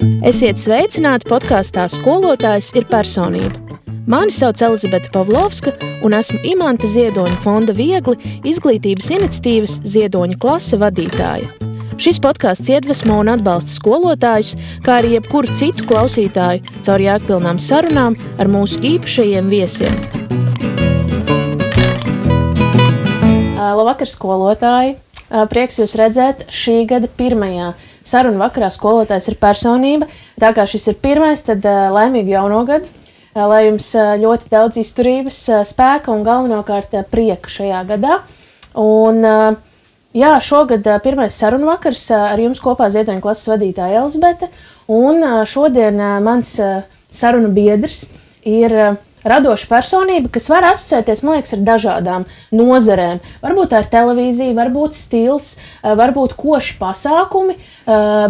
Esiet sveicināti podkāstā Skolotājs ir personība. Mani sauc Elizabete Pavlovska un esmu Imanta Ziedoņa fonda Viegli izglītības iniciatīvas Ziedoņa klase vadītāja. Šis podkāsts iedvesmo un atbalsta skolotājus, kā arī jebkuru citu klausītāju caur jēgpilnām sarunām ar mūsu īpašajiem viesiem. Labvakar, skolotāji! Prieks jūs redzēt šī gada pirmajā sarunu vakarā Skolotājs ir personība. Tā kā šis ir pirmais, tad laimīgu jauno gadu, lai jums ļoti daudz izturības, spēka un galvenokārt prieka šajā gadā. Un jā, šogad pirmais sarunu vakars ar jums kopā Ziedoņa klases vadītāja Elizabete. Un šodien mans sarunu biedrs ir radoša personība, kas var asociēties, man liekas, ar dažādām nozarēm. Varbūt tā ir televīzija, varbūt stils, varbūt koši pasākumi,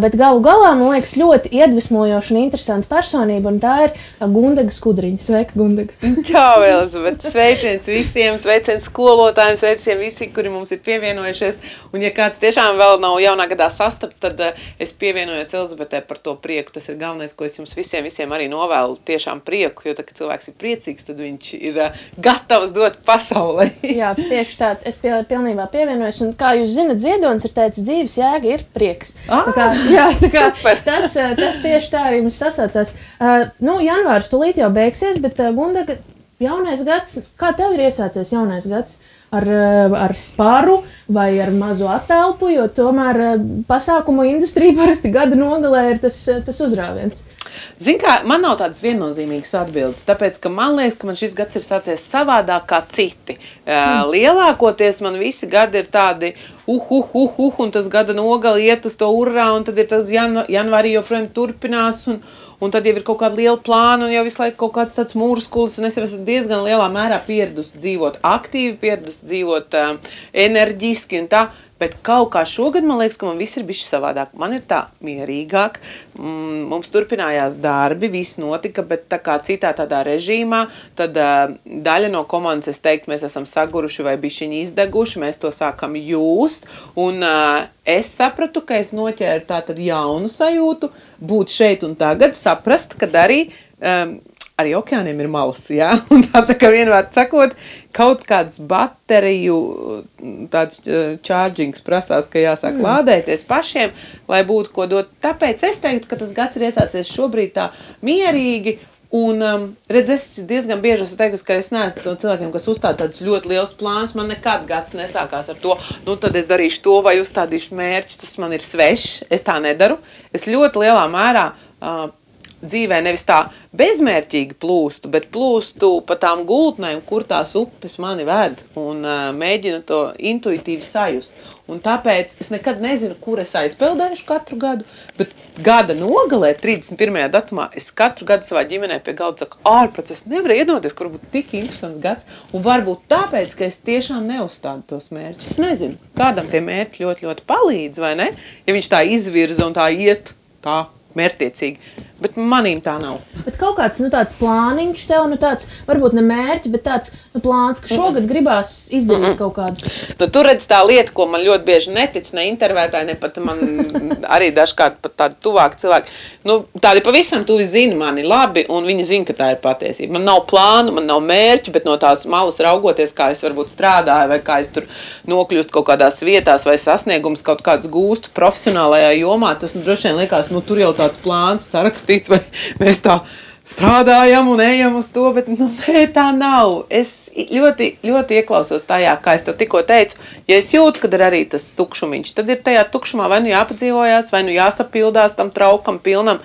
bet galu galā, man liekas, ļoti iedvesmojoša un interesanta personība, un tā ir Gundaga Skudriņa. Sveika, Gundaga! Čau, Elizabete! Sveiciens visiem, sveiciens skolotājiem, sveiciens visi, kuri mums ir pievienojušies. Un ja kāds tiešām vēl nav jaunā gadā sastapt, tad es pievienojos Elizabetē par to prieku. Tas ir galvenais, ko es jums visiem arī novēlu, tiešām prieku, jo tā, kad cilvēks ir priecīgs, tad viņš ir gatavs dot pasaulē. Jā, tieši tā, es pilnībā pievienojos, un kā jūs zinat, Ziedonis ir teicis, dzīves jēga ir prieks. Tas tieši tā arī mums sasaucās. Janvārs tūlīt jau beigsies, bet Gundaga, jaunais gads, kā tev ir iesācies jaunais gads? Ar sparu vai ar mazu attelpu, jo tomēr pasākumu industrija parasti gada nogalē ir tas uzrāviens. Zin kā, man nav tādas viennozīmīgas atbildes, tāpēc, ka man liekas, ka man šis gads ir sācies savādāk kā citi. Lielākoties man visi gadi ir tādi un tas gada nogali iet uz to urrā, un tad ir tas janvārī joprojām turpinās, un tad jau ir kaut kāda liela plāna, un jau visu laiku kaut kāds tāds mūrskulis, un es jau esmu diezgan lielā mērā pieradusi dzīvot aktīvi, pieradusi dzīvot enerģiski un tā, bet kaut kā šogad man liekas, ka man viss ir bišķi savādāk. Man ir tā mierīgāk, mums turpinājās darbi, viss notika, bet tā kā citā tādā režīmā, tad daļa no komandas, es teiktu, mēs esam saguruši vai bišķiņi izdeguši, mēs to sākam jūst, un es sapratu, ka es noķēru tā tad jaunu sajūtu, būt šeit un tagad, saprast, kad arī okeāniem ir malas, jā, un tā kā vienmēr sakot, kaut kāds bateriju tāds chargings prasās, ka jāsāk lādēties pašiem, lai būtu ko dot. Tāpēc es teiktu, ka tas gads ir iesācies šobrīd tā mierīgi, un, es diezgan bieži esmu teikusi, ka es neesmu no cilvēkiem, kas uzstāda tādus ļoti liels plāns, man nekad gads nesākās ar to, tad es darīšu to vai uzstādīšu mērķi, tas man ir svešs, es tā nedaru. Es ļoti lielā mērā dzīvē nevis tā bezmērķīgi plūstu, bet plūstu pa tām gultnēm, kur tās upes mani ved, un mēģinu to intuitīvi sajust. Un tāpēc es nekad nezinu, kur es aizpeldēšu katru gadu, bet gada nogalē, 31. datumā, es katru gadu savā ģimenē pie galda saku, ārprāt, es nevaru iedomāties, kur būtu tik interesants gads, un varbūt tāpēc, ka es tiešām neuzstādu tos mērķus. Es nezinu, kādam tie mērķi ļoti, ļoti palīdz, vai ne? Ja viņš tā izvirza un tā iet, tā mērķtiecīgi. Bet manīm tā nav. Bet kaut kāds, tāds plāniņš tev, tāds, varbūt ne mērķi, bet tāds, plāns, ka šogad gribās izdarīt kaut kādus. Tu redz tā lieta, ko man ļoti bieži netic, ne intervētāji, ne pat man arī dažkārt pat tādi tuvāki cilvēki. Tādi pavisam tuvi zina mani labi, un viņi zina, ka tā ir patiesība. Man nav plānu, man nav mērķi, bet no tās malas raugoties, kā es varbūt strādāju, vai kā es tur nokļūstu kaut kādās vietās, vai sasniegums kaut kāds gūstu profesionālajā jomā, tas droši vien liekas, tur jau tāds plāns sarakstīts, vai mēs tā strādājam un ejam uz to, bet nē, tā nav. Es ļoti, ļoti ieklausos tajā, kā es tev tikko teicu, ja es jūtu, kad ir arī tas tukšumiņš, tad ir tajā tukšumā vai jāpadzīvojās, vai jāsapildās tam traukam pilnam.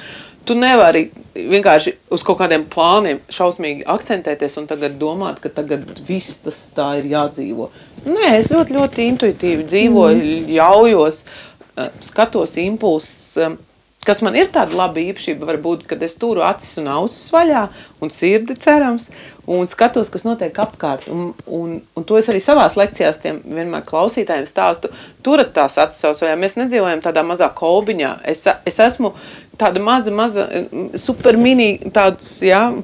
Tu nevari vienkārši uz kaut kādiem plāniem šausmīgi akcentēties un tagad domāt, ka tagad viss tas tā ir jādzīvo. Nē, es ļoti, ļoti intuitīvi dzīvoju, ļaujos, skatos impulsus, kas man ir tāda laba īpašība, varbūt, kad es turu acis un ausis vaļā un sirdi cerams, un skatos, kas notiek apkārt. Un to es arī savās lekcijās tiem vienmēr klausītājiem stāstu. Turat tās acis savs vaļā. Mēs nedzīvojam tādā mazā kolbiņā. Es esmu tāda maza, super mini tāds,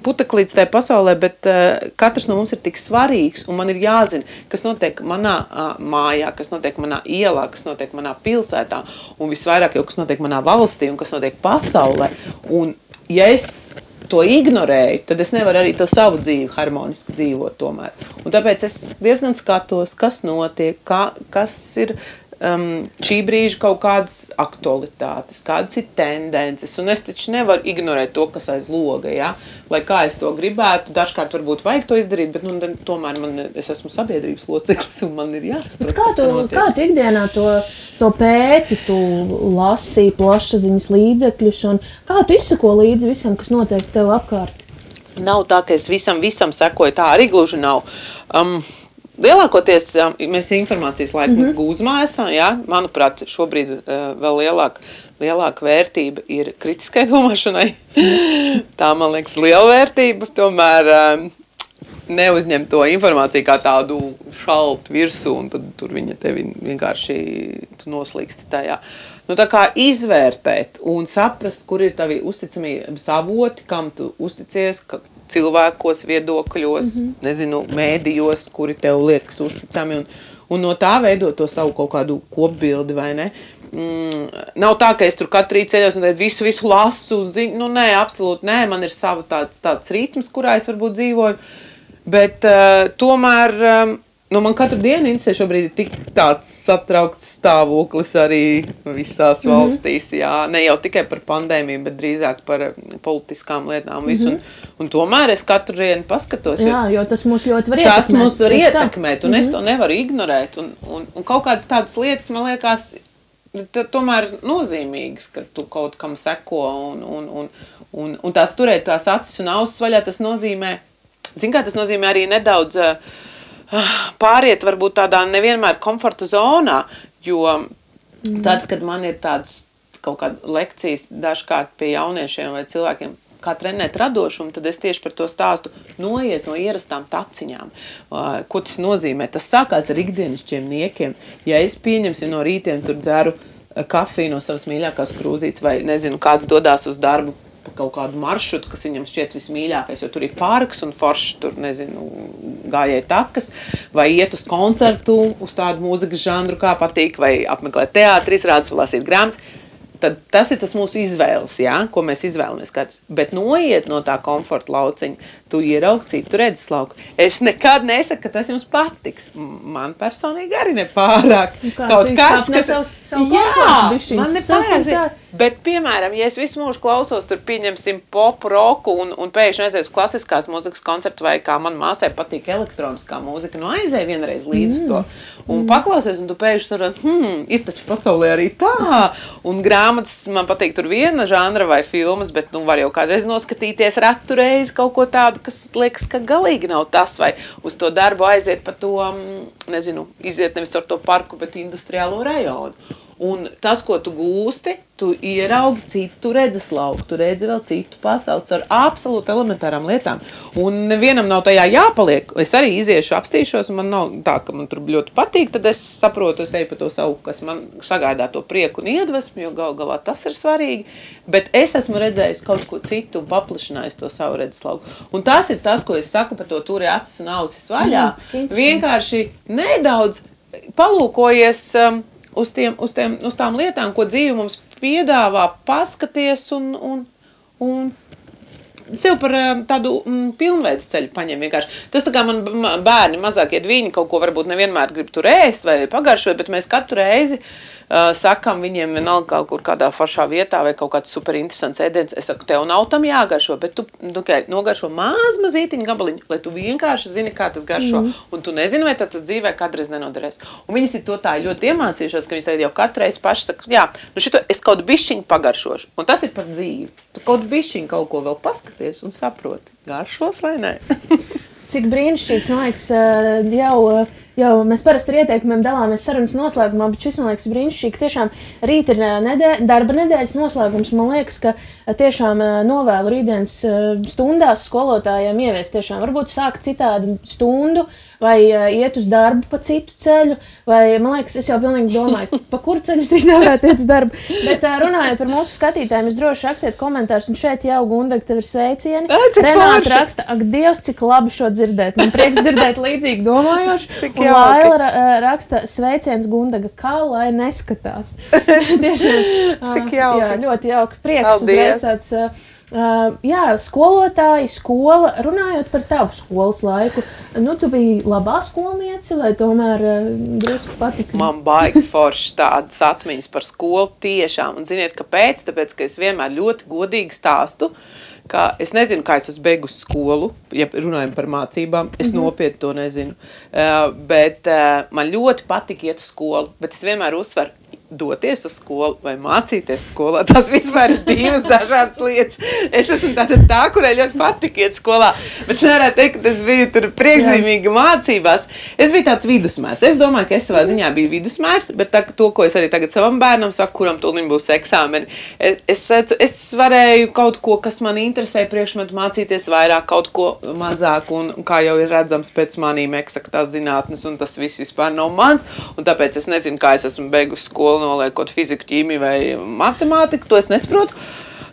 puteklīts tajā pasaulē, bet katrs no mums ir tik svarīgs, un man ir jāzina, kas notiek manā mājā, kas notiek manā ielā, kas notiek manā pilsētā, un visvairāk jau, kas notiek manā valstī, un kas notiek pasaulē. Un ja es to ignorēju, tad es nevaru arī to savu dzīvi harmoniski dzīvot tomēr. Un tāpēc es diezgan skatos, kas notiek, kas ir šī brīža kaut kādas aktualitātes, kādas ir tendences, un es taču nevaru ignorēt to, kas aiz loga, lai kā es to gribētu, dažkārt varbūt vajag to izdarīt, bet tomēr es esmu sabiedrības loceklis, un man ir jāsaprot, kas tā notiek. Kā tu ikdienā to pēti, tu lasīji plašsaziņas līdzekļus, un kā tu izsako līdzi visam, kas notiek tev apkārt? Nav tā, ka es visam sekoju, tā arī gluži nav. Lielākoties mēs informācijas laiku gūzmā esam, manuprāt, šobrīd vēl lielāka vērtība ir kritiskai domāšanai. Tā, man liekas, liela vērtība, tomēr neuzņem to informāciju kā tādu šaltu virsū, un tad tur viņa tevi vienkārši noslīksti tajā. Tā kā izvērtēt un saprast, kur ir tavi uzticamības avoti, kam tu uzticies, cilvēkos, viedokļos, mēdījos, kuri tev liekas uzticami, un no tā veidot to savu kaut kādu kopbildi, vai ne? Nav tā, ka es tur katru rītu ceļos un visu lasu, nē, absolūti nē, man ir sava tāds ritms, kurā es varbūt dzīvoju, bet tomēr, man katru dienu interesē šobrīd tik tāds satraukts stāvoklis arī visās valstīs, ne jau tikai par pandēmiju, bet drīzāk par politiskām lietām visu, un tomēr es katru dienu paskatos. Jo tas mūs ļoti var ietekmēt. Tas mūs var ietekmēt, un es to nevaru ignorēt, un kaut kādas tādas lietas, man liekas, tomēr nozīmīgas, ka tu kaut kam seko, un tās turēt tās acis un ausis vaļā, tas nozīmē, tas nozīmē arī nedaudz pāriet varbūt tādā nevienmēr komforta zonā, jo tad, kad man ir tādas kaut kāda lekcijas dažkārt pie jauniešiem vai cilvēkiem, kā trenēt radošumu, tad es tieši par to stāstu noiet no ierastām taciņām. Ko tas nozīmē? Tas sākās ar ikdienišķiem niekiem. Ja es pieņemsim no rītiem tur dzeru kafiju no savas mīļākās krūzītes vai, nezinu, kāds dodās uz darbu pa kaut kādu maršrutu, kas viņam šķiet vismīļākais, jo tur ir parks un forši tur, nezinu, gājēji takas, vai iet uz koncertu, uz tādu mūzikas žanru, kā patīk, vai apmeklēt teātri, izrādes, vai lasīt grāmatas. Tad tas ir tas mūsu izvēles, ko mēs izvēlamies katrs. Bet noiet no tā komforta lauciņa, tu ieraugi citu redzeslauku. Es nekad nesaku, ka tas jums patiks. Man personīgi arī nepārāk. Kaut kas, man nepārāk. Bet, piemēram, ja es visu mūžu klausos, tur pieņemsim popu, roku un pēkšņi aizies klasiskās mūzikas koncertu, vai kā man māsai patīk elektroniskā mūzika, aizēj vienreiz līdz to. Un paklausies, un tu pēkšņi saproti, ir taču pasaulē arī tā. Un grāmatas, man patīk tur viena žanra vai filmas, bet var jau kādreiz noskatīties ratu reizi kaut ko tādu, kas liekas, ka galīgi nav tas, vai uz to darbu aiziet pa to, nezinu, iziet nevis ar to parku, bet industriālo rajonu. Un tas, ko tu gūsti, tu ieraugi citu redzeslauku, tu redzi vēl citu pasauli ar absolūti elementārām lietām. Un nevienam nav tajā jāpaliek. Es arī iziešu, apstīšos, un man nav tā, ka man tur ļoti patīk, tad es saprotu, es eju pa to savu, kas man sagādā to prieku un iedvesmu, jo galā tas ir svarīgi. Bet es esmu redzējis kaut ko citu un paplašinājis to savu redzeslauku. Un tas ir tas, ko es saku par to turi acis un ausis vaļā. Vienkārši nedaudz palūkojies uz tām lietām, ko dzīve mums piedāvā, paskaties un sev par tādu pilnveids ceļu paņem vienkārši. Tas tā kā man bērni mazākie viņi kaut ko varbūt nevienmēr grib tur ēst vai pagaršot, bet mēs katru reizi sakam viņiem vienalga kaut kur kādā foršā vietā vai kaut kāds super interesants ēdiens. Es saku, tev nav tam jāgaršo, bet tu nogaršo mazītiņu gabaliņu, lai tu vienkārši zini, kā tas garšo. Un tu nezini, vai tas dzīvē kādreiz nenoderēs. Un viņas ir to tā ļoti iemācījušās, ka viņas tagad jau katru reizi paši saka, šito es kaut bišķiņu pagaršošu. Un tas ir par dzīvi. Tu kaut bišķiņu kaut ko vēl paskaties un saproti, garšos vai nē. Cik brīnišķīgs, man liekas, jau jau mēs parasti ar ieteikumiem dalāmies sarunas noslēgumā, bet šis, man liekas, brīnišķīgi. Tiešām rīt ir darba nedēļas noslēgums. Man liekas, ka tiešām novēlu rītdienas stundās skolotājiem ieviest tiešām varbūt sākt citādu stundu vai iet uz darbu pa citu ceļu, vai, man liekas, es jau pilnīgi domāju, pa kuru ceļu es rīt nevarētu iet uz darbu. Bet runājot par mūsu skatītājiem, jūs droši rakstiet komentārus, un šeit jau, Gundaga, tev ir sveicieni. Renāta raksta, ak, Dievs, cik labi šo dzirdēt. Man prieks dzirdēt līdzīgi domājoši. Un Laila raksta, sveiciens Gundaga, kā lai neskatās. Tiešām, cik jauki. Jā, ļoti jauki. Prieks uzreiz tāds, jā, skolotāji, skola, runājot par tavu skolas laiku. Nu, tu biji labā skolniece vai tomēr drusku patika? Man baigi forši tādas atmiņas par skolu tiešām. Un ziniet, kāpēc? Tāpēc, ka es vienmēr ļoti godīgi stāstu, ka es nezinu, kā es esmu beigusi skolu, ja runājam par mācībām, es nopietni to nezinu. Bet man ļoti patika iet uz skolu, bet es vienmēr uzsveru, doties uz skolu vai mācīties skolā. Tas vispār ir divas dažādas lietas. Es esmu tā, kurai ļoti patika iet skolā, bet nevarētu teikt, ka es biju tur priekšzīmīgi mācībās. Es biju tāds vidusmērs. Es domāju, ka es savā ziņā biju vidusmērs, bet to, ko es arī tagad savam bērnam saku, kuram tūlīt būs eksāmeni, es varēju kaut ko, kas man interesē priekšmetu mācīties vairāk, kaut ko mazāk, un kā jau ir redzams pēc manīm eksaktās zinātnes, un tas viss vispār nav mans, un tāpēc es nezinu, kā es esmu beigusi skolu, noliekot fiziku, ķīmiju vai matemātiku, to es nesaprotu.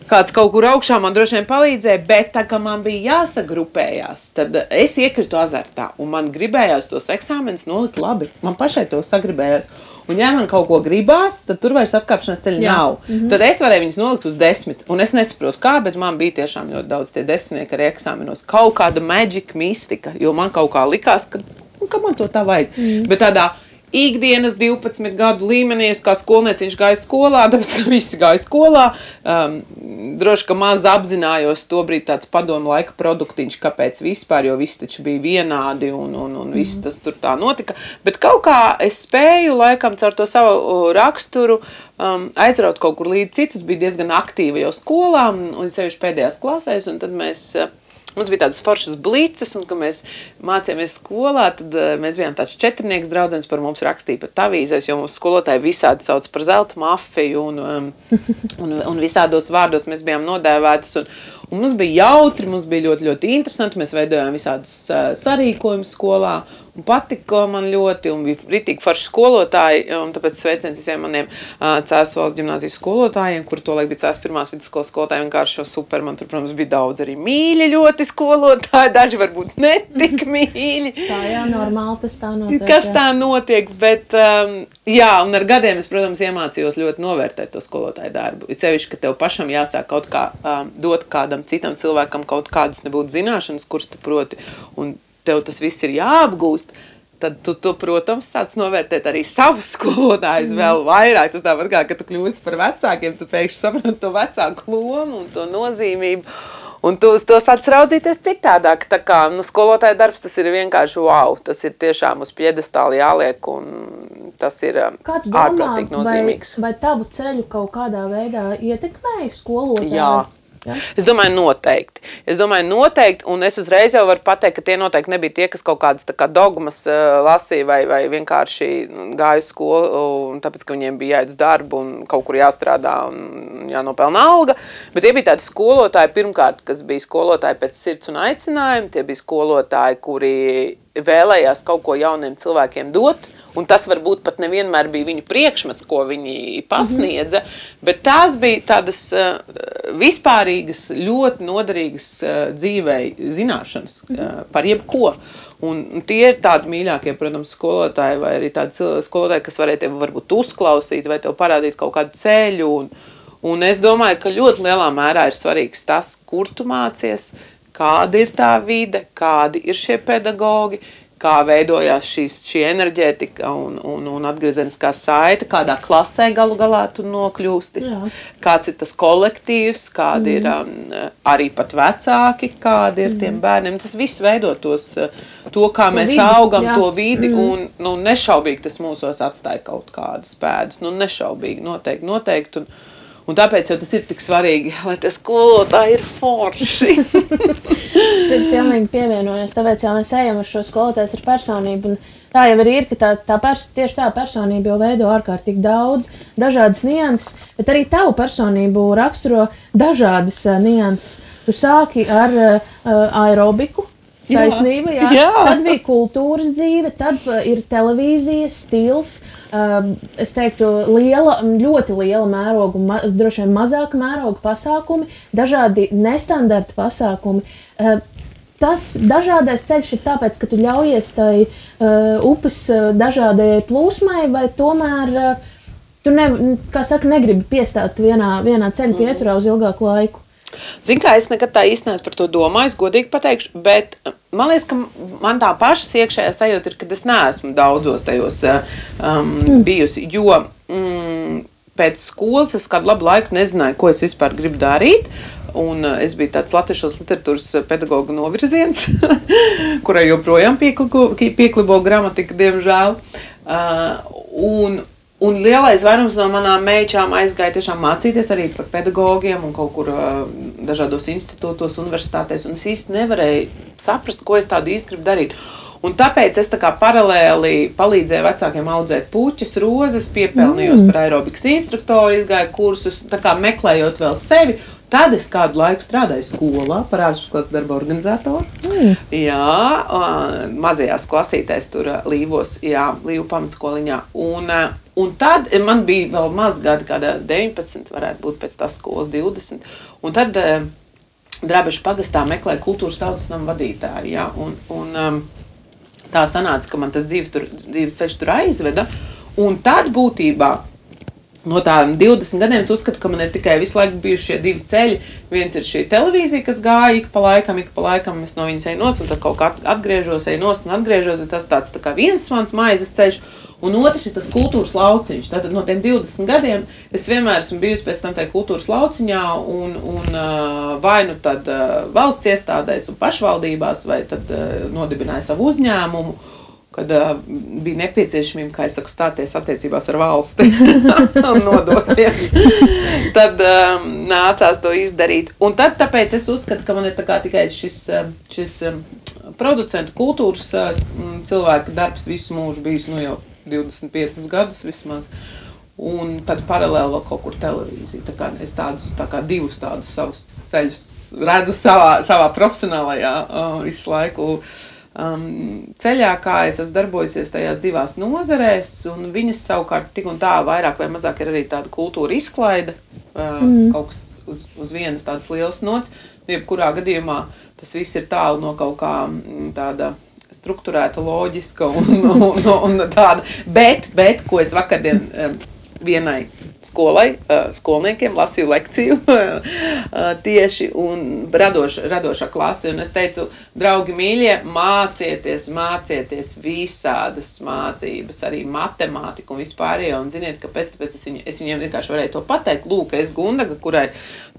Kāds kaut kur augšā man droši vien palīdzēja, bet tā kā man bija jāsagrupējās, tad es iekritu azartā, un man gribējās tos eksāmenus nolikt labi. Man pašai to sagribējās. Un ja man kaut ko gribās, tad tur vairs atkāpšanās ceļa nav. Tad es varēju viņus nolikt uz 10, un es nesaprotu kā, bet man bija tiešām ļoti daudz tie 10 arī eksāmenos. Kaut kāda magic mistika, jo man kaut kā likās, ka man to tā vajag. Bet tādā ikdienas 12 gadu līmenī, es kā skolnieciņš gāju skolā, tāpēc, ka visi gāja skolā. Droši, ka maz apzinājos tobrīd tāds padomu laika produktiņš, kāpēc vispār, jo visi taču bija vienādi un viss tas tur tā notika. Bet kaut kā es spēju laikam caur to savu raksturu aizraut kaut kur līdz citus, bija diezgan aktīva jau skolā, un sevišķi pēdējās klasēs, un tad mums bija tādas foršas blices, un, kad mēs mācījāmies skolā, tad mēs bijām tāds 4 draudzenes, par mums rakstīja pat avīzēs, jo mums skolotāji visādi sauc par zelta mafiju, un visādos vārdos mēs bijām nodēvētas, un mums bija jautri, mums bija ļoti, ļoti interesanti, mēs veidojām visādus sarīkojumus skolā, un patika man ļoti, un bija ritīgi forši skolotāji, un tāpēc sveiciens visiem maniem Cēsu valsts ģimnāzijas skolotājiem, kur tolaik bija Cēsu pirmās vidusskolas skolotāji, vienkārši šo super, man tur, protams, bija daudz arī mīļi ļoti skolotāji, daži varbūt netik mīļi. Tā jā, normāli tas tā notiek. Kas tā notiek, bet jā, un ar gadiem es, protams, iemācījos ļoti novērtēt to skolotāju darbu. Ir sevišķi, ka tev pašam jāsāk kaut kā dot kādam citam cilvēkam kaut kādas nebūtu zināšanas, kuras tu proti, un tev tas viss ir jāapgūst, tad tu protams, sāc novērtēt arī savus skolotājus vēl vairāk. Tas tāpat kā, kad tu kļūsti par vecākiem, tu pēkšņi saproti to vecāku lomu un to nozīmību. Un tu uz to sāc raudzīties citādāk. Tā kā, skolotāja darbs, tas ir vienkārši wow. Tas ir tiešām uz piedestāli jāliek, un tas ir ārprātīgi nozīmīgs. Vai tavu ceļu kaut kādā veidā ietekmēja skolotāji? Jā. Ja? Es domāju noteikti, un es uzreiz jau varu pateikt, ka tie noteikti nebija tie, kas kaut kādas tā kā dogmas lasīja vai vienkārši gāja uz skolu, un tāpēc, ka viņiem bija jāiet uz darbu un kaut kur jāstrādā un jānopelna alga, bet tie bija tādi skolotāji pirmkārt, kas bija skolotāji pēc sirds un aicinājumi, tie bija skolotāji, kuri vēlējās kaut ko jauniem cilvēkiem dot, un tas varbūt pat nevienmēr bija viņu priekšmets, ko viņi pasniedza, bet tās bija tādas vispārīgas, ļoti noderīgas dzīvei zināšanas par jebko. Un tie ir tādi mīļākie, protams, skolotāji, vai arī tādi skolotāji, kas varēja tevi varbūt uzklausīt, vai tev parādīt kaut kādu ceļu. Un es domāju, ka ļoti lielā mērā ir svarīgs tas, kur tu mācies, kāda ir tā vide, kādi ir šie pedagogi, kā veidojās šī enerģētika un atgriezeniskā saite, kādā klasē galu galā tu nokļūsti, kāds ir tas kolektīvs, kādi ir arī pat vecāki, kādi ir tiem bērniem. Tas viss veido to kā mēs augam, to vidi, un nešaubīgi tas mūsos atstāja kaut kādas pēdas. Nešaubīgi, noteikti. Un tāpēc jau tas ir tik svarīgi, lai tie skolotāji ir forši. Es pilnīgi pievienojos, tāpēc jau mēs ejam ar šo skolotājs ar personību. Un tā jau arī ir, ka tieši tā personība jau veido ārkārtīgi daudz, dažādas nianses, bet arī tavu personību raksturo dažādas nianses. Tu sāki ar aerobiku. Taisnība, jā. Tad bija kultūras dzīve, tad ir televīzijas stils, es teiktu, ļoti liela mēroga, droši vien mazāka mēroga pasākumi, dažādi nestandarta pasākumi. Tas dažādais ceļš ir tāpēc, ka tu ļaujies tai upes dažādajai plūsmai, vai tomēr tu, negribi piestāt vienā ceļa pieturā uz ilgāku laiku? Zini, kā es nekad tā īsti neesmu par to domājis, godīgi pateikšu, bet man liekas, ka man tā pašas iekšējā sajūta ir, ka es neesmu daudzos tajos bijusi, jo pēc skolas es kādu labu laiku nezināju, ko es vispār gribu darīt, un es biju tāds latviešos literatūras pedagoga novirziens, kurai joprojām pieklibo gramatika, diemžēl, Un lielais vairums no manām meičām aizgāja tiešām mācīties arī par pedagogiem un kaut kur dažādos institūtos, universitātēs, un es īsti nevarēju saprast, ko es tādu īsti gribu darīt. Un tāpēc es tā kā paralēli palīdzēju vecākiem audzēt puķus, rozes, piepelnījos par aerobikas instruktoru, izgāju kursus, tā kā meklējot vēl sevi. Tad es kādu laiku strādāju skolā par ārpusklases darba organizatoru. Jā, mazajās klasītēs tur Līvos, Līvu pamatskoliņā. Un tad man bija vēl maz gadi, kādā 19, varētu būt pēc tās skolas 20. Un tad Drabešu pagastā meklēja kultūras tautas nama vadītāju. Jā, un tā sanāca, ka man tas dzīves ceļš tur aizveda. Un tad būtībā no tādiem 20 gadiem es uzskatu, ka man ir tikai visu laiku bijuši šie divi ceļi. Viens ir šī televīzija, kas gāja ik pa laikam es no viņas eju nost, un tad kaut kā atgriežos, tas tāds tā kā viens mans maizes ceļš, un otrs ir tas kultūras lauciņš. Tātad no tiem 20 gadiem es vienmēr esmu bijusi pēc tam tajā kultūras lauciņā, un vai nu tad valsts iestādēs un pašvaldībās, vai tad nodibināju savu uzņēmumu, kad bija nepieciešamība, kā es saku, stāties attiecībās ar valsti un nodokļiem. Tad nācās to izdarīt. Un tad tāpēc es uzskatu, ka man ir tā kā tikai šis producentu kultūras cilvēka darbs visu mūžu bijis, jau 25 gadus vismaz. Un tad paralēli vēl kaut kur televīzija. Tā kā es divus tādus savus ceļus redzu savā profesionālajā visu laiku ceļā, kā es esmu darbojusies tajās divās nozarēs, un viņas savukārt tik un tā vairāk vai mazāk ir arī tāda kultūra izklaide, kaut kas uz vienas tādas lielas nots. Jebkurā gadījumā tas viss ir tālu no kaut kā tāda strukturēta, loģiska un tāda. Bet, ko es vakardien vienai skolniekiem lasīju lekciju tieši un radošā klase. Un es teicu, draugi mīļie, mācieties visādas mācības, arī matemātiku un vispārējo. Un ziniet, kāpēc? Tāpēc es viņiem vienkārši varēju to pateikt. Lūk, es Gundaga, kurai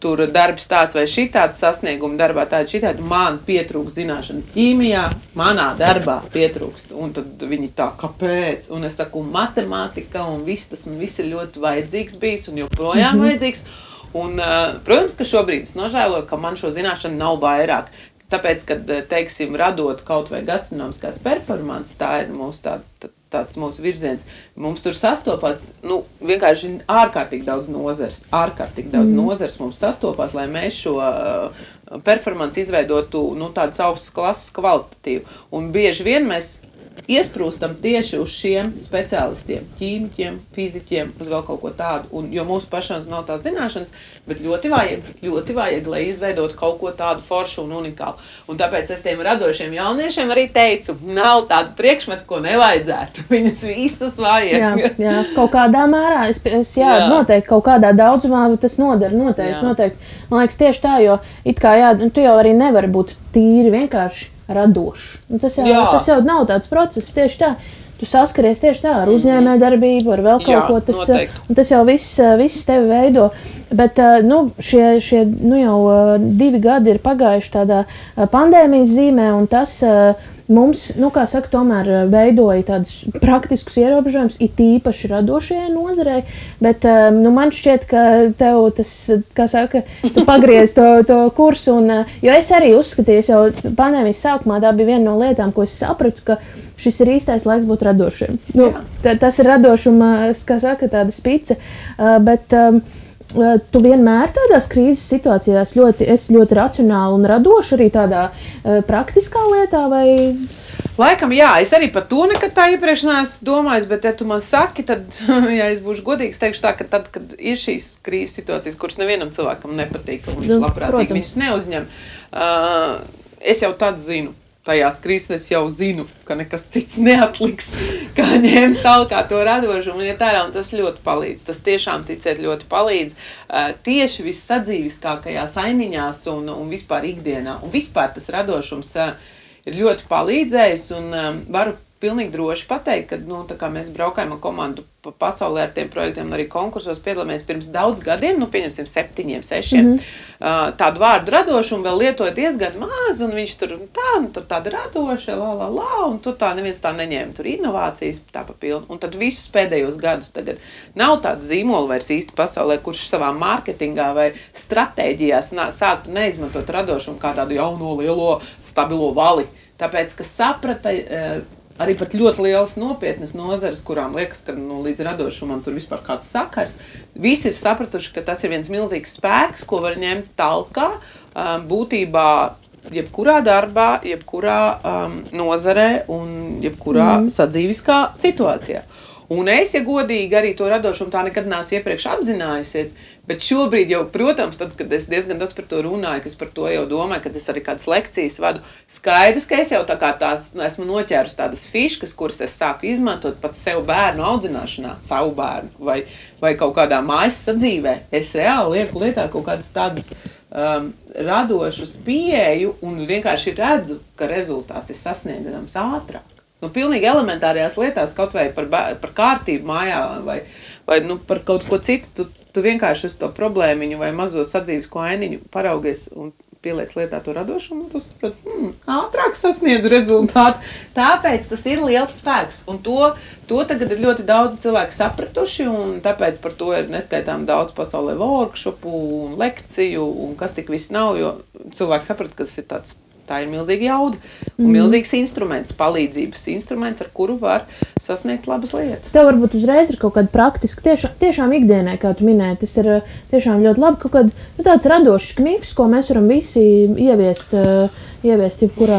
tur darbs tāds vai šitāds sasniegumi darbā tādi šitādi, man pietrūkst zināšanas ķīmijā, manā darbā pietrūkst. Un tad viņi tā, kāpēc? Un es saku, matemātika un tas man viss ir ļoti vajadzīgs bijis un joprojām vajadzīgs. Un, protams, ka šobrīd es nožēloju, ka man šo zināšanu nav vairāk. Tāpēc, kad, teiksim, radot kaut vai gastronomiskās performances, tā ir mūsu tāds mūsu virziens. Mums tur sastopās, vienkārši ārkārtīgi daudz nozars. Nozars mums sastopās, lai mēs šo performanci izveidotu, tādas augstas klases kvalitatīvu. Un bieži vien mēs iesprūstam tieši uz šiem speciālistiem, ķīmiķiem, fiziķiem, uz vēl kaut ko tādu, jo mūsu pašams nav tās zināšanas, bet ļoti vajag, lai izveidotu kaut ko tādu foršu un unikālu. Un tāpēc es tiem radošiem jauniešiem arī teicu, nav tādu priekšmetu, ko nevajadzētu. Viņus visas vajag. Jā, kaut kādā mērā, noteikti kaut kādā daudzumā tas noder, noteikti. Man liekas tieši tā, jo it kā tu jau arī nevari būt tīri vienkārši radošs. Tas jau nav tāds process, tieši tā. tu saskaries tieši tā ar uzņēmējdarbību, ar vēl kaut ko. Tas jau viss tevi veido. Bet šie jau 2 gadi ir pagājuši tādā pandēmijas zīmē, un tas mums, kā saka, tomēr veidoja tādus praktiskus ierobežojumus, it īpaši radošajai nozarei, bet man šķiet, ka tev tas, kā saka, tu pagriez to kursu, jo es arī uzskatīju, jau pandēmijas sākumā tā bija viena no lietām, ko es sapratu, ka šis ir īstais laiks būt radošiem. Tas ir radošuma, kā saka, tāda spice, bet tu vienmēr tādās krīzes situācijās esi ļoti racionāli un radoši arī tādā praktiskā lietā, vai? Laikam, jā, es arī par to nekad tā iepriekš neesmu domājis, bet ja tu man saki, tad, ja es būšu godīgs, teikšu tā, ka tad, kad ir šīs krīzes situācijas, kuras nevienam cilvēkam nepatīk, un viņš labprātīgi viņus neuzņem, es jau tad zinu. Tajās krīzes jau zinu, ka nekas cits neatliks, kā ņemt talkā to radošumu, un tas ļoti palīdz. Tas tiešām, ticiet, ļoti palīdz tieši vissadzīviskākajās ainiņās un vispār ikdienā. Un vispār tas radošums ir ļoti palīdzējis un varu pilnīgi droši pateikt, ka tā kā mēs braukājam ar komandu pa pasaulē ar tiem projektiem un arī konkursos piedalāmies pirms daudz gadiem, pieņemsim 7, 6, tādu vārdu radošumu vēl lietoja diezgan maz, un viņš tur tāda radoša, un tur tā neviens tā neņēma, tur inovācijas tā pa pilnu. Un tad visus pēdējos gadus tagad nav tāda zīmola vairs īsti pasaulē, kurš savā mārketingā vai stratēģijās sāktu neizmantot radošumu kā tādu jauno, lielo, stabilo vali. Tāpēc, ka saprata arī pat ļoti lielas nopietnas nozares, kurām liekas, ka līdz radošumam tur vispār kāds sakars. Visi ir sapratuši, ka tas ir viens milzīgs spēks, ko var ņemt talkā, būtībā jebkurā darbā, jebkurā nozarē un jebkurā sadzīviskā situācijā. Un es, ja godīgi, arī to radošumu tā nekad neesmu iepriekš apzinājusies, bet šobrīd jau, protams, tad, kad es diezgan daudz par to runāju, ka es par to jau domāju, kad es arī kādas lekcijas vadu, skaidrs, ka es jau tā kā esmu noķērus tādas fiškas, kuras es sāku izmantot pat sev bērnu audzināšanā, savu bērnu vai kaut kādā mājas sadzīvē. Es reāli lieku lietā kaut kādas tādas radošas pieeju un vienkārši redzu, ka rezultāts ir sasniegams ātrāk. Pilnīgi elementārajās lietās, kaut vai par kārtību mājā vai par kaut ko citu, tu vienkārši uz to problēmiņu vai mazo sadzīvisko ainiņu paraugies un pieliec lietā to radošumu, un tu saproti, ātrāk sasniedz rezultātu. Tāpēc tas ir liels spēks, un to tagad ir ļoti daudz cilvēku sapratuši, un tāpēc par to ir neskaitām daudz pasaulē workshopu un lekciju, un kas tik viss nav, jo cilvēki saprata, ka tas ir tāds. Tā ir milzīga jauda un milzīgs instruments, palīdzības instruments, ar kuru var sasniegt labas lietas. Tev varbūt uzreiz ir kaut kāda praktiska, tiešām ikdienai, kā tu minēji, tas ir tiešām ļoti labi, kaut kāda tāds radošs knifs, ko mēs varam visi ieviest jebkurā.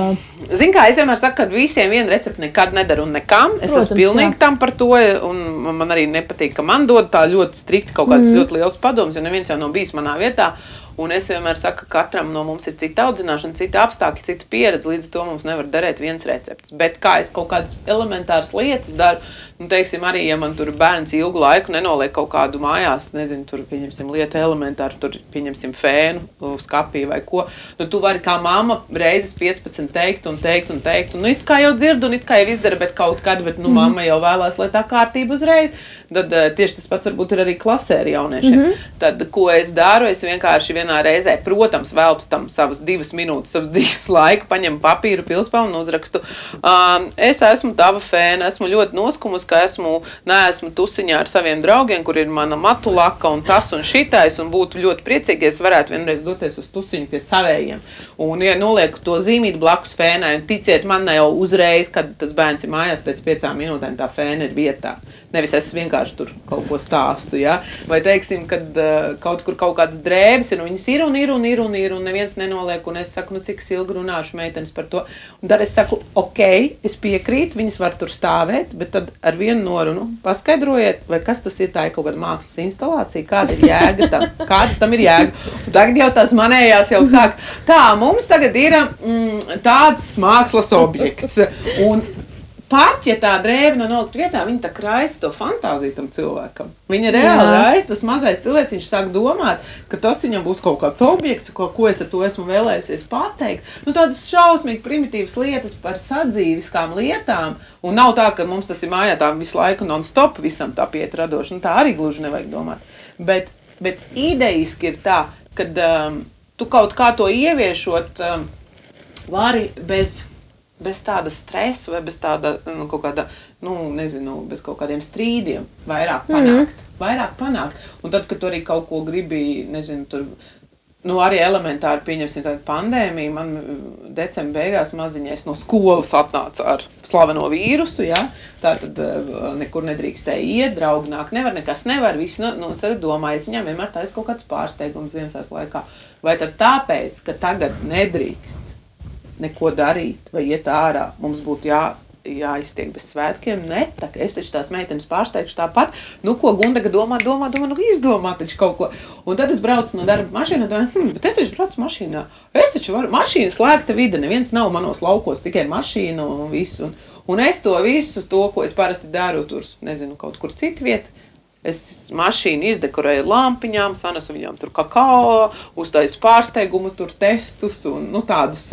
Zini kā, es vienmēr saku, ka visiem viena recepte nekad nedara un nekam. Es esmu pilnīgi tam par to, un man arī nepatīk, ka man dod tā ļoti strikti kaut kāds ļoti liels padoms, jo neviens jau nav bijis manā vietā. Un es vienmēr saku, ka katram no mums ir cita audzināšana, cita apstākļi, cita pieredze, līdz to mums nevar darēt viens recepts. Bet kā es kaut kādas elementāras lietas daru, teiksim, arī, ja man tur bērns ilgu laiku nenoliek kaut kādu mājās, nezinu, tur pieņemsim lietu elementāru, tur pieņemsim fēnu, skapī vai ko, tu vari kā mamma reizes 15 teikt, un it kā jau dzirdu, un it kā jau izdara, bet kaut kad, mamma jau vēlās, lai tā kārtība uzreiz. Tad tieši tas pats varbūt ir arī klasē ar jauniešiem. Tad, ko es daru, es vienkārši vienā reizē, protams, veltu tam savas 2 minūtes, savas dzīves laiku, paņemu papīru, pilspalvu un uzrakstu. Es esmu tava fēna, esmu ļoti noskumus, ka neesmu tusiņā ar saviem draugiem, kur ir mana matulaka un tas un šitais, un būtu ļoti priecīgi, ja es varētu vienreiz doties uz tusiņu pie savējiem. Un, ja nolieku to zīmīt blakus fēnai, un ticiet, man jau uzreiz, kad tas bērns ir mājās, pēc 5 minūtēm tā fēna ir vietā. Nevis es vienkārši tur kaut ko stāstu, ja? Vai teiksim, kad kaut kur kaut kādas drēbes ir, un viņas ir, un neviens nenoliek, un es saku, cik es ilgi runāšu meitenes par to. Un tad es saku, ok, es piekrītu, viņas var tur stāvēt, bet tad ar vienu norunu paskaidrojiet, vai kas tas ir, tā ir kaut kāda mākslas instalācija, kāda ir jēga tam, kāda tam ir jēga. Un tagad jau tās manējās jau sāk, tā, mums tagad ir tāds mākslas objekts, un pat, ja tā drēbe no nolikt vietā, viņa tā raisa to fantāziju tam cilvēkam. Viņa reāli raisa, tas mazais cilvēks, viņš sāk domāt, ka tas viņam būs kaut kāds objekts, ko es ar to esmu vēlējusies pateikt. Nu, tādas šausmīgi primitīvas lietas par sadzīviskām lietām, un nav tā, ka mums tas ir mājā tā visu laiku non-stop visam tā piet radoši, nu tā arī gluži nevajag domāt. Bet idejiski ir tā, kad tu kaut kā to ieviešot vari bez tāda stresa vai bez tāda, kaut kāda, nezinu, bez kaut kādiem strīdiem vairāk panākt. Un tad, kad tu arī kaut ko gribi, nezinu, tur, arī elementāri pieņemsim tādu pandēmiju, man decembra beigās maziņais no skolas atnāca ar slaveno vīrusu, ja? Tātad nekur nedrīkstēja iet, draugi nāk, nekas nevar, visi, tagad domāju, es viņām vienmēr taisa kaut kāds pārsteigums Ziemassvētku laikā. Vai tad tāpēc, ka tagad nedrīkst neko darīt vai iet ārā, mums būtu jāiztiek bez svētkiem, es taču tās meitenes pārsteigšu tāpat, ko Gundaga domā, izdomā taču kaut ko. Un tad es braucu no darba mašīnā, domāju, bet es taču braucu mašīnā, es taču varu, mašīna slēgta vide, neviens nav manos laukos, tikai mašīna un viss. Un es to visu, ko es parasti daru tur, nezinu, kaut kur citu vietu, es mašīnu izdekorēju lampiņām, sanesu viņām tur kakao, uztaisu pārsteigumu, tur testus un tādus,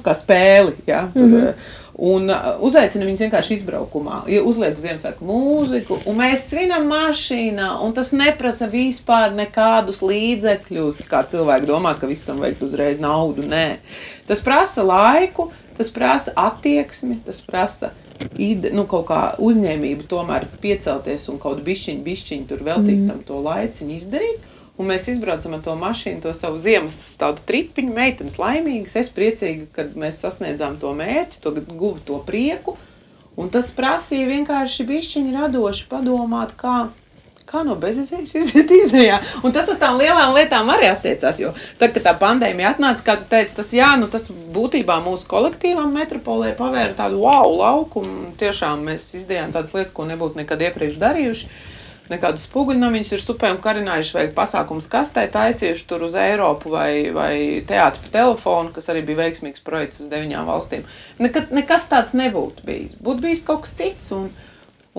kā spēli, ja, tur, un uzaicinu viņus vienkārši izbraukumā, uzlieku Ziemassvētku mūziku, un mēs svinam mašīnā, un tas neprasa vispār nekādus līdzekļus, kā cilvēki domā, ka visam vajag uzreiz naudu, nē. Tas prasa laiku, tas prasa attieksmi, tas prasa kaut kā uzņēmību tomēr piecelties un kaut bišķiņ tur veltīt tam to laiciņu izdarīt. Un mēs izbraucam ar to mašīnu, to savu ziemas tādu tripiņu, meitenes laimīgas, es priecīga, kad mēs sasniedzām to mērķi, to guvu to prieku. Un tas prasīja vienkārši bišķiņi radoši padomāt, kā no bezizējas iziet izējā. Un tas uz tām lielām lietām arī attiecās, jo tad, kad tā pandēmija atnāca, kā tu teici, tas būtībā mūsu kolektīvam metropolē pavēra tādu lauku, un tiešām mēs izdarījām tādas lietas, ko nebūtu nekad iepriekš darījuši. Nekādus spoguļnamiņus ir supēm karinājuši vai pasākums kastē taisījuši tur uz Eiropu vai teātri pa telefonu, kas arī bija veiksmīgs projekts uz 9 valstīm. Nekas tāds nebūtu bijis. Būtu bijis kaut kas cits,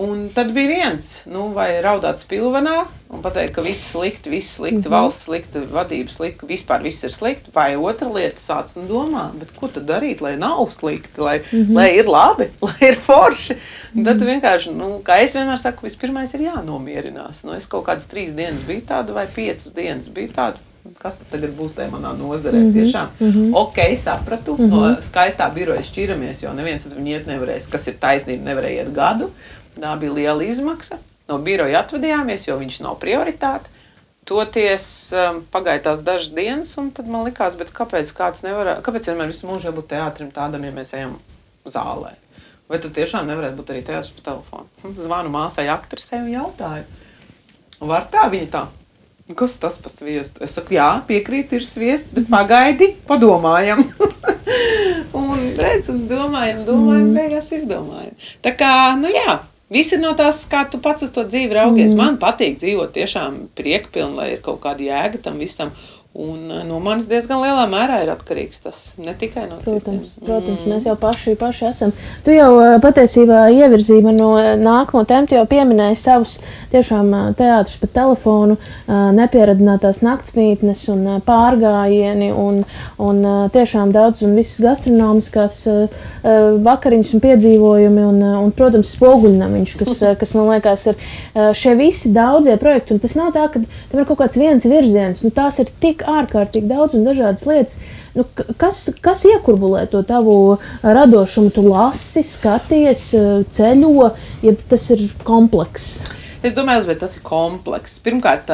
un tad bija viens, vai raudāt spilvenā un pateikt, ka viss slikti, valsts slikti, vadība slikti, vispār viss ir slikti, vai otra lieta sāc domā, bet ko tad darīt, lai nav slikti, lai ir labi, lai ir forši. Un tad vienkārši, kā es vienmēr saku, vispirmais ir jānomierinās. Es kaut kādas 3 dienas biju tāda vai 5 dienas biju tāda. Kas tad tagad būs tajā manā nozarē? Tiešām, sapratu, no skaistā biroja šķiramies, jo neviens uz viņu iet nevarēs, kas ir taisnība, nevarēja iet gadu. Tā bija liela izmaksa. No biroja atvedījāmies, jo viņš nav prioritāte. Toties pagāja tās dažas dienas, un tad man likās, bet kāpēc vienmēr visu mūžu jābūt teātrim tādam, ja mēs ejam zālē? Vai tad tiešām nevarētu būt arī teātris pa telefonu? Zvanu māsai aktrisei un jautāju. Var tā? Viņa tā. Kas tas pa sviestu? Es saku, jā, piekrīt, ir sviests, bet pagaidi, padomājam. un domājam, beigās izdomājam. Tā kā, jā, viss ir no tās, kā tu pats uz to dzīvi raugies. Man patīk dzīvot tiešām priekpilni, lai ir kaut kāda jēga tam visam. Un no manis diezgan lielā mērā ir atkarīgs tas, ne tikai no citiem. Protams, mēs jau paši esam. Tu jau patiesībā ievirzīji man no nākamo tēmu, tu jau pieminēji savus tiešām teātrus pa telefonu, nepieradinātās naktsmītnes un pārgājieni un tiešām daudz un visas gastronomiskās vakariņas un piedzīvojumi un protams, spoguļnamiņš, kas man liekas ir šie visi daudzie projekti. Un tas nav tā, ka tam ir kaut kāds viens virziens, tās ir tik ārkārtīgi daudz un dažādas lietas. Kas iekurbulē to tavu radošumu? Tu lasi, skaties, ceļo, ja tas ir komplekss? Es domāju, bet tas ir komplekss. Pirmkārt,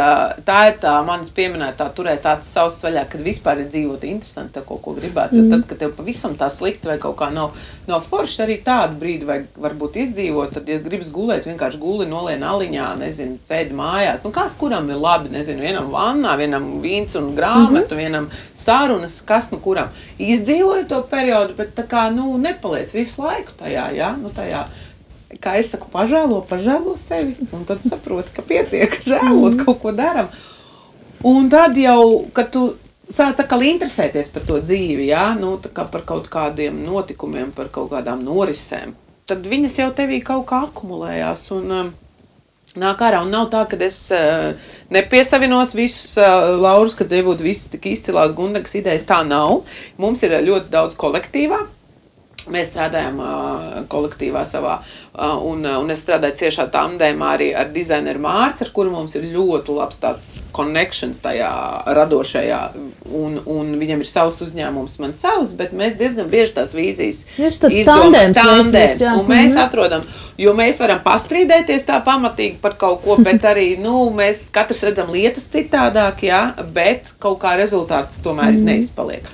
tā ir tā manis pieminētā turēt tāds savs vaļā, kad vispār ir dzīvot interesanti, kaut ko gribās. Jo tad, kad tev pavisam tā slikti vai kaut kā nav forši, arī tādu brīdi vajag varbūt izdzīvot, tad, ja gribas gulēt, vienkārši guli nolien aliņā, nezinu, ceļ mājās. Kas kuram ir labi, nezinu, vienam vannā, vienam vīns un grāmatu, vienam sarunas, kas kuram. Izdzīvoju to periodu, bet tā kā, nepaliec visu laiku tajā, ja? Tajā. Kā es saku, pažēlo sevi, un tad saproti, ka pietiek žēlot, kaut ko daram. Un tad jau, kad tu sāc atkal interesēties par to dzīvi, ja? Tā kā par kaut kādiem notikumiem, par kaut kādām norisēm, tad viņas jau tevī kaut kā akumulējās un nāk ārā. Un nav tā, ka es nepiesavinos visus laurus, ka te būtu visi tik izcilās Gundegas idejas. Tā nav. Mums ir ļoti daudz kolektīvā. Mēs strādājam kolektīvā savā, un es strādāju ciešā tandēmā arī ar dizaineru Mārci, ar kuru mums ir ļoti labs tāds connections tajā radošajā, un viņam ir savs uzņēmums, man savs, bet mēs diezgan bieži tās vīzijas izdomājam. Tandēms, un mēs atrodam, jo mēs varam pastrīdēties tā pamatīgi par kaut ko, bet arī, mēs katrs redzam lietas citādāk, jā, bet kaut kā rezultāts tomēr neizpaliek.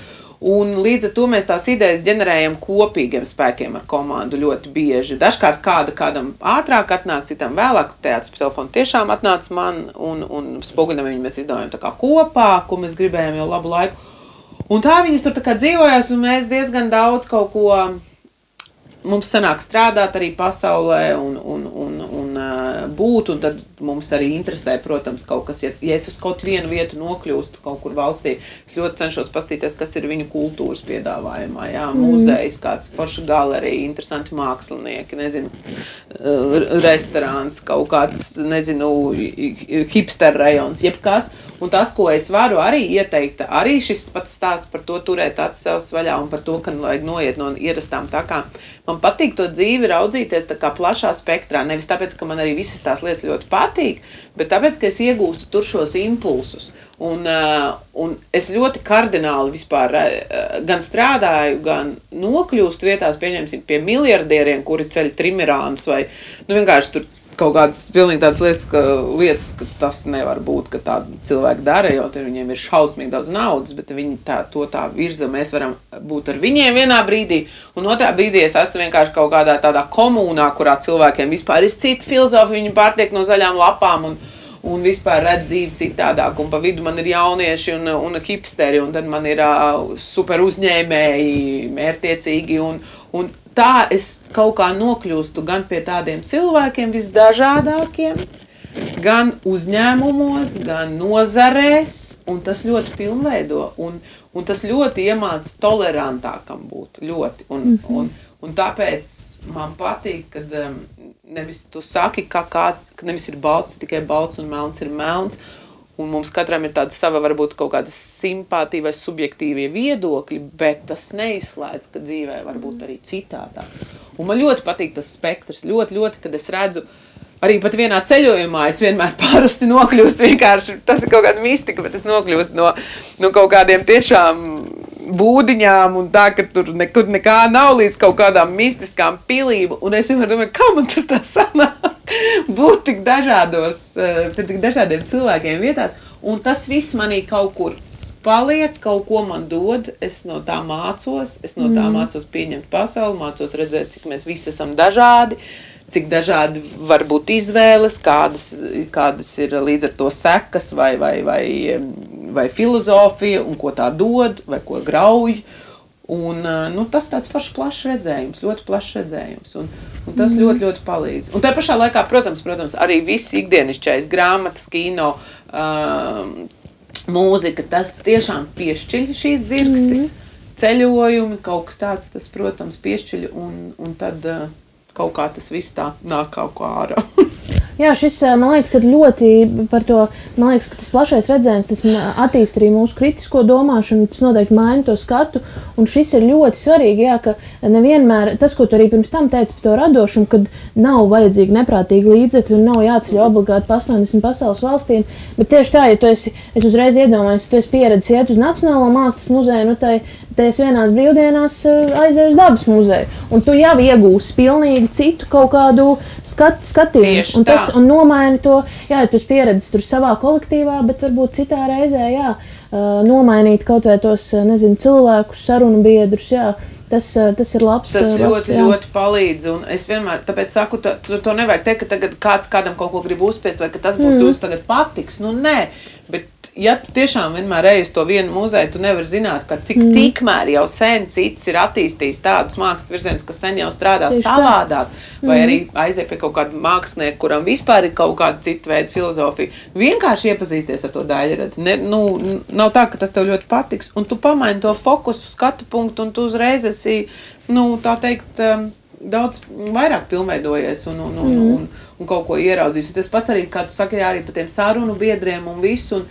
Un līdz ar to mēs tās idejas ģenerējam kopīgiem spēkiem ar komandu ļoti bieži. Dažkārt kādam ātrāk atnāk, citam vēlāk. Teātris telefonu tiešām atnāca man un Spoguļnamiņu mēs izdomājam tā kā kopā, ko mēs gribējām jau labu laiku. Un tā viņas tur tā kā dzīvojās un mēs diezgan daudz kaut ko, mums sanāk strādāt arī pasaulē un būt, un tad mums arī interesē, protams, kaut kas, ja es uz kaut vienu vietu nokļūstu kaut kur valstī, es ļoti cenšos pastīties, kas ir viņu kultūras piedāvājumā, jā, muzejs, kāds forša galerija, interesanti mākslinieki, nezinu, restorāns, kaut kāds, nezinu, hipster rajons, jebkas, un tas, ko es varu arī ieteikt, arī šis pats stāsts par to turēt acis sev vaļā un par to, ka vajag noiet no ierastām takām. Man patīk to dzīvi raudzīties tā kā plašā spektrā, nevis tāpēc, ka man arī visas tās lietas ļoti patīk, bet tāpēc, ka es iegūstu tur šos impulsus. Un es ļoti kardināli vispār gan strādāju, gan nokļūstu vietās, pieņemsim, pie miljardieriem, kuri ceļ trimirānus vai, vienkārši tur kaut kādas pilnīgi tādas lietas, ka tas nevar būt, ka tādi cilvēki dara, jo viņiem ir šausmīgi daudz naudas, bet viņi to tā virza, mēs varam būt ar viņiem vienā brīdī, un otrā brīdī es esmu vienkārši kaut kādā tādā komunā, kurā cilvēkiem vispār ir cita filozofija, viņi pārtiek no zaļām lapām un vispār redz dzīvi citādāk, un pa vidu man ir jaunieši un hipsteri, un tad man ir super uzņēmēji, mērtiecīgi, un tā es kaut kā nokļūstu gan pie tādiem cilvēkiem visdažādākiem, gan uzņēmumos, gan nozarēs, un tas ļoti pilnveido, un tas ļoti iemāca tolerantākam būt, ļoti, un tāpēc man patīk, kad nevis tu saki, ka nevis ir balts, tikai balts un melns ir melns, un mums katram ir tāda sava, varbūt kaut kāda simpātija vai subjektīvie viedokļi, bet tas neizslēdz, ka dzīvē var būt arī citādāk. Un man ļoti patīk tas spektrs, ļoti, kad es redzu, arī pat vienā ceļojumā es vienmēr parasti nokļūstu vienkārši, tas ir kaut kāda mistika, bet es nokļūstu no kaut kādiem tiešām būdiņām un tā, ka tur nekur nekā nav līdz kaut kādām mistiskām pilīm, un es vienmēr domāju, kā man tas tā sanāk būt tik dažādos, pie tik dažādiem cilvēkiem vietās, un tas viss manī kaut kur paliek, kaut ko man dod, es no tā mācos, mācos pieņemt pasauli, mācos redzēt, cik mēs visi esam dažādi, cik dažādi var būt izvēles, kādas ir līdz ar to sekas vai filozofija, un ko tā dod, vai ko grauj. Un tas tāds foršs plašs redzējums, ļoti plašs redzējums, un tas ļoti palīdz. Un tā pašā laikā, protams, arī viss ikdienišķais, grāmatas, kino, mūzika, tas tiešām piešķiļ šīs dzirkstis, ceļojumi, kaut kas tāds, tas, protams, piešķiļ, un tad kaut kā tas viss tā nāk kaut kā ārā. Jā, šis, man liekas, ir ļoti par to, man liekas, ka tas plašais redzējums, tas attīst arī mūsu kritisko domāšanu, tas noteikti maina to skatu, un šis ir ļoti svarīgi, jā, ka nevienmēr, tas, ko tu arī pirms tam teici par to radošumu, kad nav vajadzīgi neprātīgi līdzekļi un nav jāceļ obligāti pa 80 pasaules valstīm, bet tieši tā, ja tu esi, es uzreiz iedomājos, tu esi pieredzis iet uz Nacionālo mākslas muzeju, te es vienās brīvdienās aizēju uz Dabas muzeju, un tu jau iegūsi pilnīgi citu kaut kādu skatījumu, un nomaini to, jā, ja tu esi pieredzis tur savā kolektīvā, bet varbūt citā reizē, jā, nomainīt kaut vai tos, nezinu, cilvēkus, sarunu biedrus, jā, tas ir labs. Tas ļoti palīdz, un es vienmēr, tāpēc saku, to nevajag teikt, ka tagad kāds kādam kaut ko grib uzspiest, vai ka tas būs jūs tagad patiks, nē, bet ja tu tiešām vienmēr ej uz to vienu muzeju, tu nevari zināt, ka cik tikmēr jau sen cits ir attīstījis tādus mākslas virzienus, kas sen jau strādā savādāk, vai arī aiziet pie kaut kāda mākslinieka, kuram vispār ir kaut kāda cita veida filozofija. Vienkārši iepazīsties ar to daļradi. Nav tā, ka tas tev ļoti patiks, un tu pamaini to fokusu, skatu punktu, un tu uzreiz esi, tā teikt, daudz vairāk pilnveidojies un kaut ko ieraudzījis. Un tas pats arī, kā tu saki, arī par tiem sarunu biedriem un visu.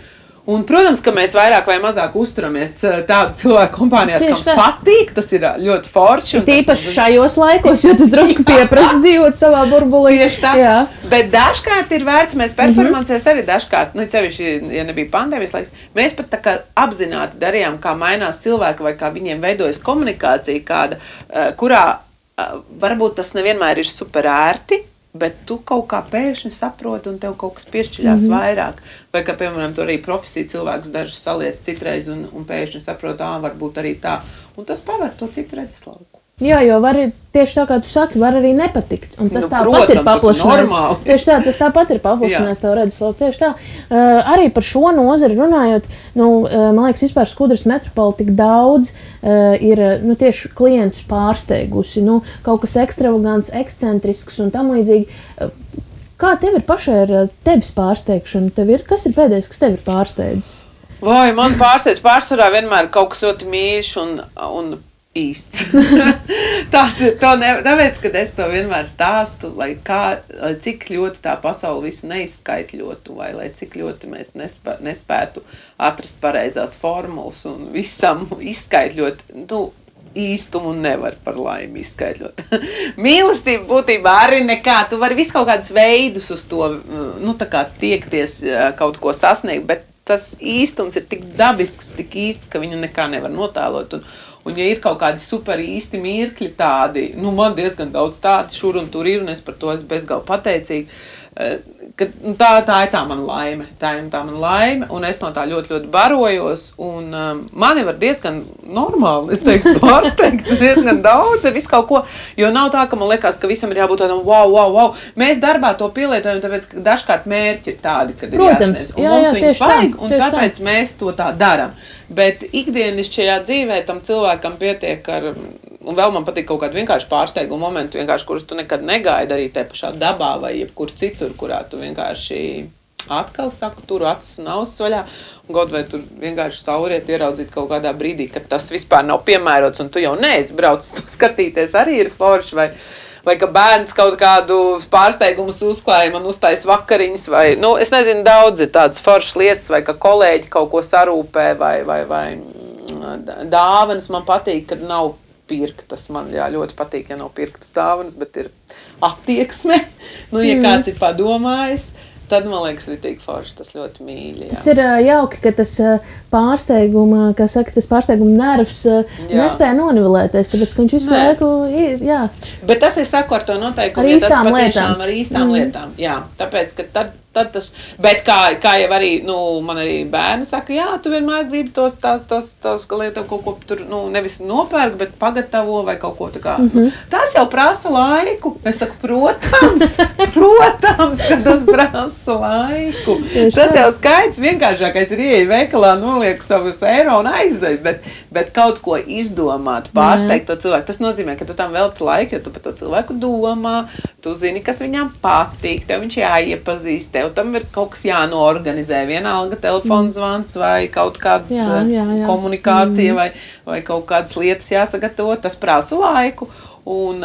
Un, protams, ka mēs vairāk vai mazāk uzturamies tādu cilvēku kompānijās, kam patīk, tas ir ļoti forši. Tīpaši šajos laikos, jo tas drusku pieprasa dzīvot savā burbulī. Tieši tā. Jā. Bet dažkārt ir vērts, mēs performancēs arī dažkārt, cevišķi, ja nebija pandēmijas laiks, mēs pat tā kā apzināti darījām, kā mainās cilvēki vai kā viņiem veidojas komunikācija kāda, kurā varbūt tas nevienmēr ir super ērti, bet tu kaut kā pēkšņi saproti un tev kaut kas piešķiļās vairāk. Vai kā, piemēram, tu arī profesiju cilvēkus dažus saliec citreiz un pēkšņi saproti, varbūt arī tā. Un tas paver to citu redzeslauku. Jā, jo var tieši tā, kā tu saki, var arī nepatikt. Un tas tāpat ir paplašinājums. Tieši tā, tas tāpat ir paplašinājums tev redzeslauku. Tieši tā. Arī par šo nozari runājot, man liekas, vispār Skudras metropola tik daudz ir tieši klientus pārsteigusi. Kaut kas ekstravagants, ekscentrisks un tam līdzīgi. Kā tev ir pašai ar tevis pārsteigšanu? Kas ir pēdējais, kas tev ir pārsteidzis? Vai, man pārsvarā vienmēr kaut kas ļoti mīļš un īsts. Tāpēc, kad es to vienmēr stāstu, lai cik ļoti tā pasaule visu neizskaitļotu, vai lai cik ļoti mēs nespētu atrast pareizās formulas un visam izskaitļot, īstumu nevar par laimi izskaidrot. Mīlestība būtībā arī nekā. Tu vari visu kaut kādus veidus uz to, tā kā tiekties kaut ko sasniegt, bet tas īstums ir tik dabisks, tik īsts, ka viņu nekā nevar notēlot. Un ja ir kaut kādi super īsti mirkļi tādi, man diezgan daudz tādi šur un tur ir, un es par to esmu bezgalīgi pateicīga, ka tā ir tā mana laime. Tā ir tā mana laime, un es no tā ļoti, ļoti barojos, un mani var diezgan normāli, es teiktu, pārsteigt diezgan daudz ar visu kaut ko, jo nav tā, ka man liekas, ka visam ir jābūt tādam wow. Mēs darbā to pielietojam, tāpēc, ka dažkārt mērķi ir tādi, kad ir jāsniedz, un mums viņus vajag, un tāpēc mēs to tā daram. Bet ikdienišķajā dzīvē tam cilvēkam pietiek ar, un vēl man patīk kaut kādu vienkārši pārsteigumu momentu, vienkārši, kurus tu nekad negaidi arī te pašā dabā vai jebkur citur, kurā tu vienkārši atkal saku, turu acis un ausis vaļā, un kaut vai tur vienkārši sauriet ieraudzīt kaut kādā brīdī, kad tas vispār nav piemērots, un tu jau neesi braucis to skatīties, arī ir forši, vai ka bērns kaut kādu pārsteigumus uzklāja, man uztais vakariņas, vai, es nezinu, daudz ir tādas foršas lietas, vai ka kolēģi kaut ko sarūpē, vai dāvanas man patīk, kad nav pirktas. Man ļoti patīk, ja nav pirktas dāvanas, bet ir attieksme. Ja kāds ir padomājis, tad, man liekas, ritīgi forši, tas ļoti mīļi. Jā. Tas ir jauki, ka tas pārsteiguma, kā saka, tas pārsteiguma nervs nespēja nonivelēties, tāpēc, ka viņš visu laiku ir, jā. Bet tas ir saku ar to noteikumu, ja tas patiešām ar īstām lietām. Jā, tāpēc, ka tad tas, bet kā jau arī, man arī bērni saka, jā, tu vienmēr gribi tos lietu kaut ko tur, nevis nopērk, bet pagatavo vai kaut ko tā kā. Tas jau prasa laiku. Es saku, protams, ka tas prasa laiku. Tas jau skaits vienkāršākais ir ieeja veikalā, nolieku savus eiro un aizej, bet kaut ko izdomāt, pārsteigt to cilvēku. Tas nozīmē, ka tu tam velti laiku, jo tu par to cilvēku domā, tu zini, kas viņam patīk, tev viņš jāiepazīst, tam ir kaut kas jānoorganizē, vienalga telefons zvans vai kaut kādas komunikācija vai kaut kādas lietas jāsagatavo, tas prasa laiku, un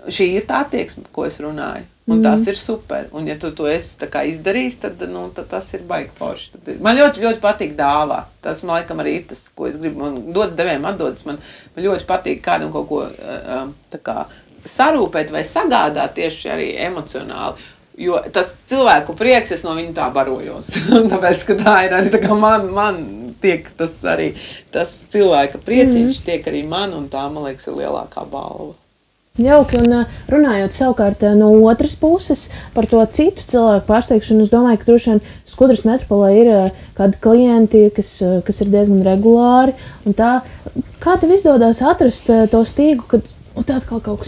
šī ir tā attieksme, ko es runāju, un tas ir super, un ja tu to esi tā kā izdarījis, tad tas ir baigi forši. Man ļoti, ļoti patīk dāvāt, tas man laikam arī ir tas, ko es gribu, man dodas devējiem atdodas, man ļoti patīk kādam kaut ko tā kā sarūpēt vai sagādāt tieši arī emocionāli. Jo tas cilvēku prieks, es no viņa tā barojos. Tāpēc, ka tā ir arī tā kā man tiek tas arī, tas cilvēka prieciņš tiek arī man, un tā, man liekas, ir lielākā balva. Jauki, un runājot savukārt no otras puses par to citu cilvēku pārsteigšanu, es domāju, ka droši vien Skudras metropolē ir kādi klienti, kas ir diezgan regulāri, un tā, kā tev izdodas atrast to stīgu, kad un tā atkal kaut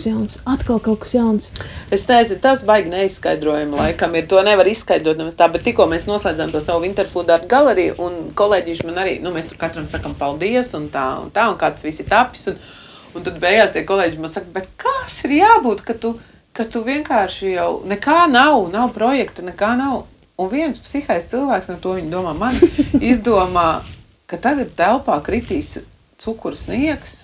kas jauns. Es teicu, tas baigi neizskaidrojami laikam ir. To nevar izskaidrot nevis tā, bet tikko mēs noslēdzām to savu Winterfood Art galeriju, un kolēģīši man arī, mēs tur katram sakam paldies, un tā, un kāds visi tapis, un tad beigās tie kolēģi man saka, bet kas ir jābūt, ka tu vienkārši jau nekā nav projekta, nekā nav. Un viens psihais cilvēks, no to viņi domā mani, izdomā, ka tagad telpā kritīs cukuru sniegs,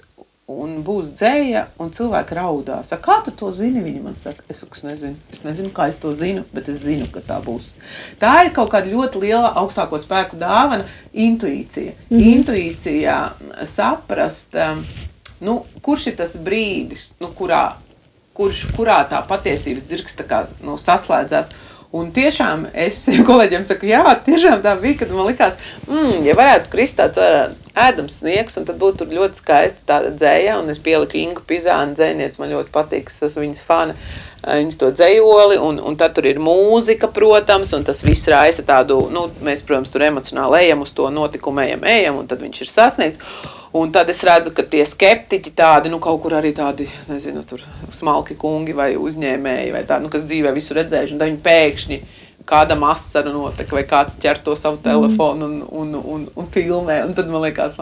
un būs dzēja, un cilvēki raudās. Kā tu to zini? Viņi man saka, es nezinu. Es nezinu, kā es to zinu, bet es zinu, ka tā būs. Tā ir kaut kāda ļoti liela augstāko spēku dāvana – intuīcija. Intuīcijā saprast, kurš ir tas brīdis, kurā tā patiesības dzirks tā kā, saslēdzās. Un tiešām es kolēģiem saku, jā, tiešām tā bija, kad man likās, ja varētu krist tāds ēdams sniegs, un tad būtu tur ļoti skaista tāda dzēja, un es pieliku Ingu Pizānu dzējnieci, man ļoti patīk, es esmu viņas fana, viņas to dzējoli, un tad tur ir mūzika, protams, un tas viss raisa tādu, mēs, protams, tur emocionāli ejam uz to notikumu, ejam, un tad viņš ir sasniegts. Un tad es redzu, ka tie skeptiķi tādi, kaut kur arī tādi, nezinu, tur smalki kungi vai uzņēmēji vai tādi, kas dzīvē visu redzējuši, un tad viņi pēkšņi kādam asaru notek, vai kāds ķer to savu telefonu un filmē, un tad man liekas,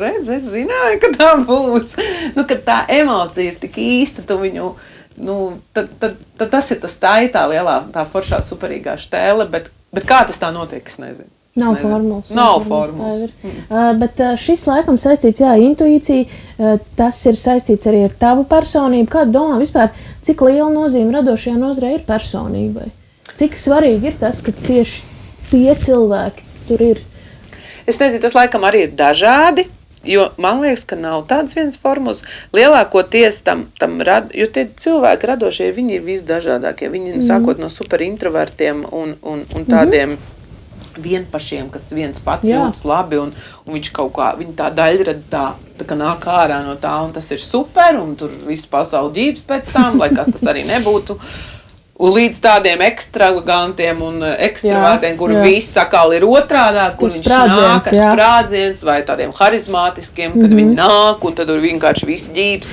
redz, es zināju, ka tā būs. Kad tā emocija ir tik īsta, tu viņu, tad tas ir tas tā lielā, tā foršā superīgā štēle, bet kā tas tā notiek, es nezinu. Nav formulas. Nav formulas. Bet šis laikam saistīts, intuīcija, tas ir saistīts arī ar tavu personību. Kā domā vispār, cik liela nozīme radošajā nozarē ir personībai? Cik svarīgi ir tas, ka tieši tie cilvēki tur ir? Es nezinu, tas laikam arī ir dažādi, jo man liekas, ka nav tāds viens formulas. Lielākoties jo tie cilvēki radošie, viņi ir visdažādākie. Viņi sākot no superintrovertiem un tādiem vienpašiem, kas viens pats jūtas labi, un viņš kaut kā, viņa tā daļrada tā kā nāk ārā no tā, un tas ir super, un tur viss pasauli ģības pēc tam, lai kas tas arī nebūtu. Un līdz tādiem ekstravagantiem un ekstravārtiem, kur viss sakāli ir otrādāk, kur viņš nāk ar sprādziens, vai tādiem harizmātiskiem, kad viņi nāk, un tad vienkārši viss ģības.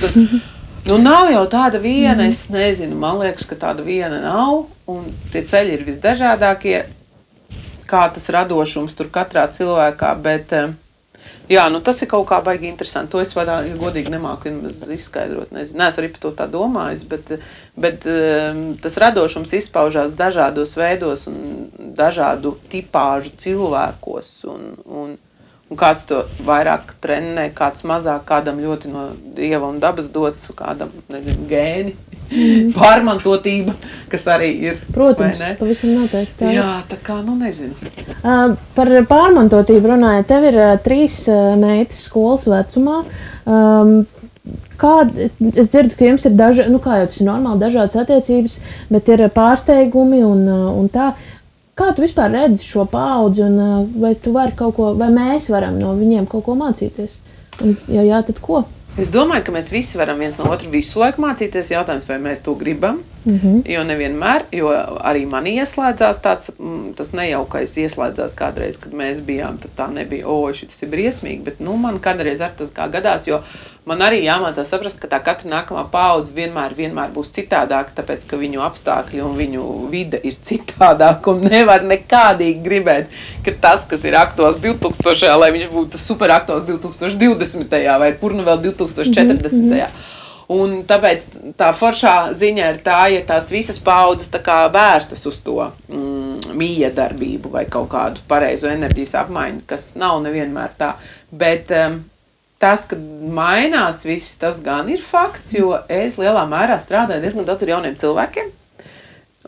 Nav jau tāda viena, es nezinu, man liekas, ka tāda viena nav, un tie ceļi ir visdažādākie, kā tas radošums tur katrā cilvēkā, bet tas ir kaut kā baigi interesanti. To es godīgi nemāku izskaidrot. Neesmu arī par to tā domājis, bet tas radošums izpaužās dažādos veidos un dažādu tipāžu cilvēkos. Un kāds to vairāk trenē, kāds mazāk, kādam ļoti no dieva un dabas dots, kādam, gēni. Pārmantotība, kas arī ir. Protams, pavisam noteikti. Tā. Jā, tā kā, nezinu. Par pārmantotību runājot, tev ir 3 meitas skolas vecumā. Es dzirdu, ka jums ir kā jau tas ir normāli, dažādas attiecības, bet ir pārsteigumi un tā. Kā tu vispār redzi šo paudzi, un vai tu vari kaut ko, vai mēs varam no viņiem kaut ko mācīties? Un, ja jā, tad ko? Es domāju, ka mēs visi varam viens no otru visu laiku mācīties. Jautājums, vai mēs to gribam, jo nevienmēr, jo arī mani ieslēdzās tas nejaukais ieslēdzās kādreiz, kad mēs bijām, tad tā nebija, šis ir briesmīgi, bet man kādreiz ar tas kā gadās, jo man arī jāmācās saprast, ka tā katra nākamā paudze vienmēr būs citādāka, tāpēc, ka viņu apstākļi un viņu vide ir citādāka un nevar nekādīgi gribēt, ka tas, kas ir aktuāls 2000. Lai viņš būtu super aktuāls 2020. Vai kur vēl 2040. Un tāpēc tā foršā ziņa ir tā, ja tās visas paudzes tā kā vērstas uz to miedarbību vai kaut kādu pareizo enerģijas apmaiņu, kas nav nevienmēr tā, bet tas, kad mainās viss, tas gan ir fakts, jo es lielā mērā strādāju diezgan daudz ar jauniem cilvēkiem,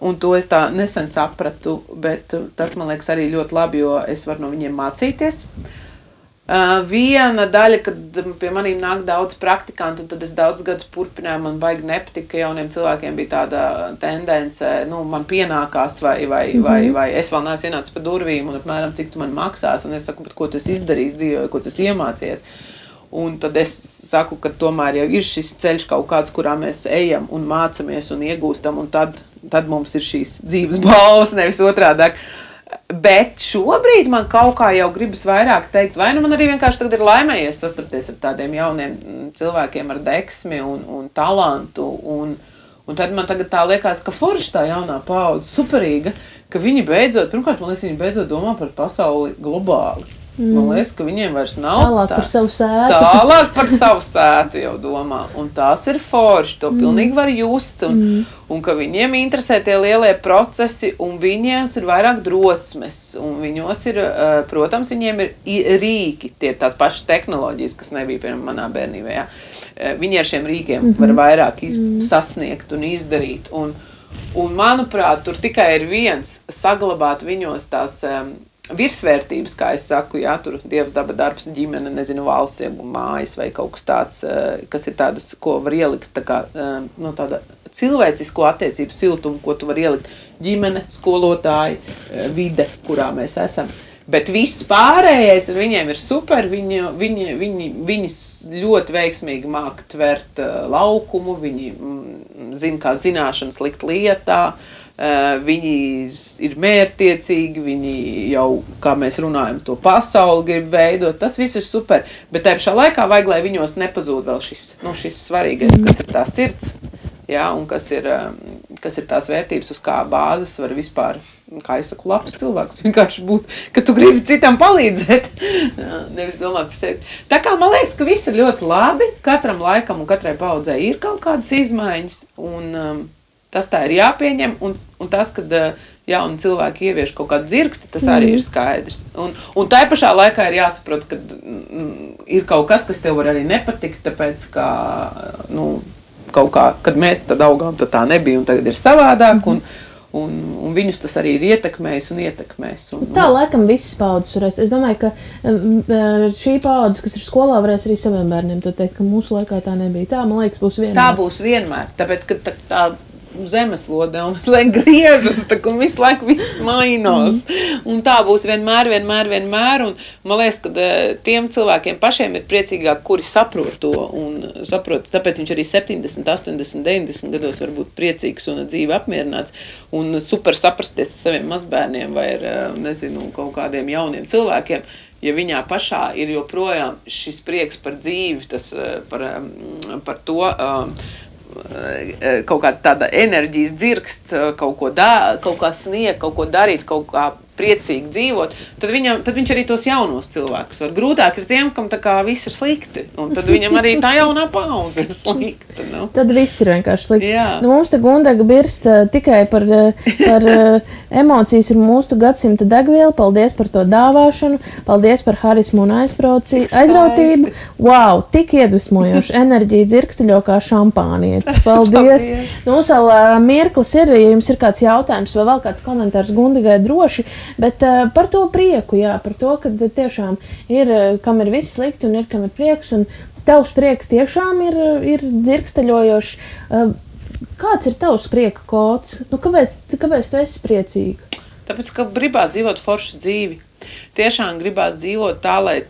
un to es tā nesen sapratu, bet tas man liekas arī ļoti labi, jo es varu no viņiem mācīties. Viena daļa, kad pie manīm nāk daudz praktikantu, un tad es daudz gadus turpināju, man baigi nepatika, ka jauniem cilvēkiem bija tāda tendence, man pienākās vai es vēl neesmu ienācis pa durvīm, un apmēram cik tu man maksās, un es saku, bet ko tu esi izdarījis dzīvē, ko tu esi iemācījies. Un tad es saku, ka tomēr jau ir šis ceļš kaut kāds, kurā mēs ejam un mācamies un iegūstam, un tad mums ir šīs dzīves balvas, nevis otrādāk. Bet šobrīd man kaut kā jau gribas vairāk teikt, vai man arī vienkārši tagad ir laimējies sastapties ar tādiem jauniem cilvēkiem ar deksmi un talantu, un tad man tagad tā liekas, ka forši tā jaunā paudze, superīga, ka viņi beidzot, pirmkārt, man liekas, viņi beidzot domā par pasauli globāli. Man liekas, ka viņiem vairs nav Tālāk par savu sētu. Tālāk par savu sētu jau domā. Un tās ir forši, to pilnīgi var just. Un ka viņiem interesē tie lielie procesi, un viņiem ir vairāk drosmes. Un viņos ir, protams, viņiem ir rīki, tie tās pašas tehnoloģijas, kas nebija piemēram manā bērnībā. Ja? Viņi ar šiem rīkiem var vairāk sasniegt un izdarīt. Un manuprāt, tur tikai ir viens saglabāt viņos tās virsvērtības, kā es saku, jā, tur dievs, daba, darbs, ģimene, nezinu, valsts, mājas vai kaut kas tāds, kas ir tādas, ko var ielikt, tā kā, no tāda cilvēcisko attiecību siltumu, ko tu var ielikt ģimene, skolotāji, vide, kurā mēs esam. Bet viss pārējais, viņiem ir super, viņi ļoti veiksmīgi māk tvert laukumu, viņi zina, kā zināšanas likt lietā, viņi ir mērķtiecīgi, viņi jau, kā mēs runājam, to pasauli grib veidot, tas viss ir super, bet tajā pašā laikā vajag, lai viņos nepazūd vēl šis svarīgais, kas ir tā sirds, jā, un kas ir tās vērtības, uz kā bāzes var vispār, kā es saku, labs cilvēks vienkārši būt, ka tu gribi citam palīdzēt, nevis domāt par sevi. Tā kā man liekas, ka viss ir ļoti labi, katram laikam un katrai paudzei ir kaut kādas izmaiņas, un tas tā ir jāpieņem, un tas, kad jauni cilvēki ievieš kaut kādu dzirksti, tas arī ir skaidrs. Un tai pašā laikā ir jāsaprot, ka ir kaut kas tev var arī nepatikt, tāpēc, ka, kaut kā, kad mēs tad augām, tad tā nebija, un tagad ir savādāk, un viņus tas arī ir ietekmējis un ietekmēs. Tā laikam visas paudzes varēs. Es domāju, ka šī paudze, kas ir skolā, varēs arī saviem bērniem to teikt, ka mūsu laikā tā nebija. Tā, man liekas, būs vienmēr. Tā būs vienmēr, tāpēc, ka tā zemeslode un visu laiku griežas, un visu laiku viss mainās. Un tā būs vienmēr, un man liekas, ka tiem cilvēkiem pašiem ir priecīgāk, kuri saprot to, un saprot, tāpēc viņš arī 70, 80, 90 gados var būt priecīgs un dzīvi apmierināts, un super saprasties ar saviem mazbērniem vai ar, nezinu, kaut kādiem jauniem cilvēkiem, ja viņā pašā ir joprojām šis prieks par dzīvi, tas par to, kaut kā tāda enerģijas dzirkst, kaut kā sniegt, kaut ko darīt, kaut kā priecīgi dzīvot, tad viņš arī tos jaunos cilvēkus var. Grūtāk ir tiem, kam tā kā viss ir slikti, un tad viņam arī tā jaunā paudze ir slikta. Nu. Tad viss ir vienkārši slikti. Jā. Mums te Gundega birst tikai par emocijas ir mūsu gadsimta degviela. Paldies par to dāvāšanu, paldies par harismu un aizrautību. Wow, tik iedvesmojoši enerģija dzirksteļo kā šampānietis. Paldies. Mums vēl mirklis ir, ja jums ir kāds jautājums vai vēl kāds komentārs Gundegai droši, bet par to prieku, jā, par to, ka tiešām ir, kam ir viss slikti un ir, kam ir prieks, un tavs prieks tiešām ir dzirksteļojošs. Kāds ir tavs prieka kods? Kāpēc tu esi priecīga? Tāpēc, ka gribās dzīvot foršu dzīvi. Tiešām gribās dzīvot tā, lai,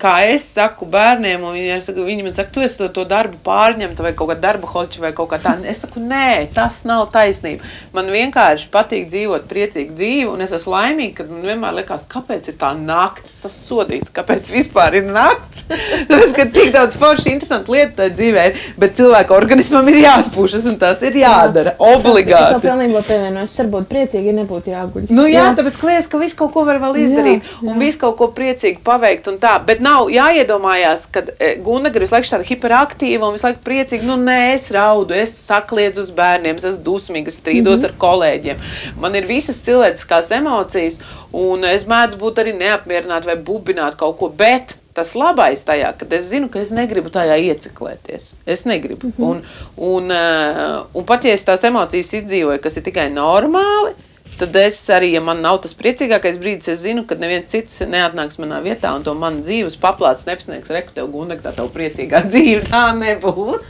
kā es saku bērniem, un viņi man saka, tu esi to darbu pārņemta vai kaut kā darba hoķi vai kaut kā tā. Es saku, nē, tas nav taisnība. Man vienkārši patīk dzīvot priecīgu dzīvi, un es esmu laimīga, kad man vienmēr liekas, kāpēc ir tā nakts, tas sodīts, kāpēc vispār ir nakts. Tāpēc, ka tik daudz forši interesanti lieta tā dzīvē ir, bet cilvēka organismam ir jāatpūšas, un tas ir jādara, obligāti. Es tev pilnībā pievienoju, es varbūt priecīgi, ja nebūtu jāguļ. Jā, tāpēc, ka liekas, ka visu kaut ko var vēl izdarīt, un visu kaut ko priecīgi paveikt, un tā, bet nav jāiedomājās, ka Gundega ir visu laiku tāda hiperaktīva un visu laiku priecīga. Nē, es raudu, es sakliedzu uz bērniem, es esmu dusmīga, es strīdos ar kolēģiem. Man ir visas cilvēciskās emocijas, un es mēdzu būt arī neapmierināta vai bubināt kaut ko, bet tas labais tajā, kad es zinu, ka es negribu tajā ieciklēties. Es negribu. Un pat, ja es tās emocijas izdzīvoju, kas ir tikai normāli, tad es arī, ja man nav tas priecīgākais brīdis, es zinu, ka neviens cits neatnāks manā vietā un to man dzīves paplāts nepasniegs, reku tev Gundega, tā tev priecīgā dzīve, tā nebūs.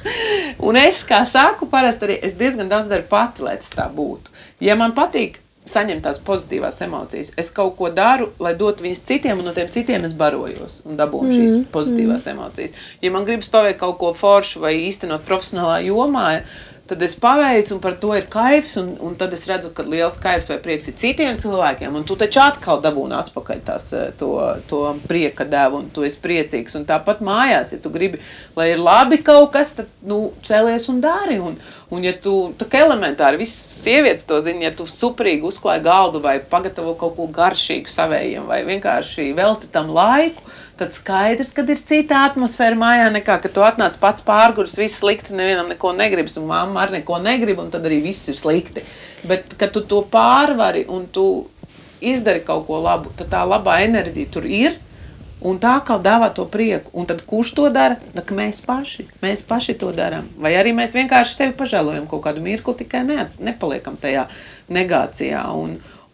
Un es, kā saku, parasti arī, es diezgan daudz daru pati, lai tas tā būtu. Ja man patīk saņemt tās pozitīvās emocijas, es kaut ko daru, lai dotu viņas citiem, un no tiem citiem es barojos un dabūnu šīs pozitīvās emocijas. Ja man gribas paveikt kaut ko foršu vai īstenot profesionālā jomā, tad es paveicu, un par to ir kaifs, un tad es redzu, ka liels kaifs vai prieks ir citiem cilvēkiem, un tu taču atkal dabūni atpakaļ to prieka devu, un tu esi priecīgs. Un tāpat mājās, ja tu gribi, lai ir labi kaut kas, tad, cēlies un dari. Un ja tu, tā kā elementāri, visas sievietes to zina, ja tu superīgi uzklāji galdu vai pagatavo kaut ko garšīgu savējiem, vai vienkārši velti tam laiku, tad skaidrs, kad ir cita atmosfēra mājā nekā, kad tu atnāc pats pārgurs, viss slikti, nevienam neko negribas, un mamma arī neko negrib, un tad arī viss ir slikti. Bet, kad tu to pārvari un tu izdari kaut ko labu, tad tā labā enerģija tur ir, un tā kā dāvā to prieku. Un tad kurš to dara? Mēs paši to darām. Vai arī mēs vienkārši sevi pažēlojam kaut kādu mirkli, tikai nepaliekam tajā negācijā.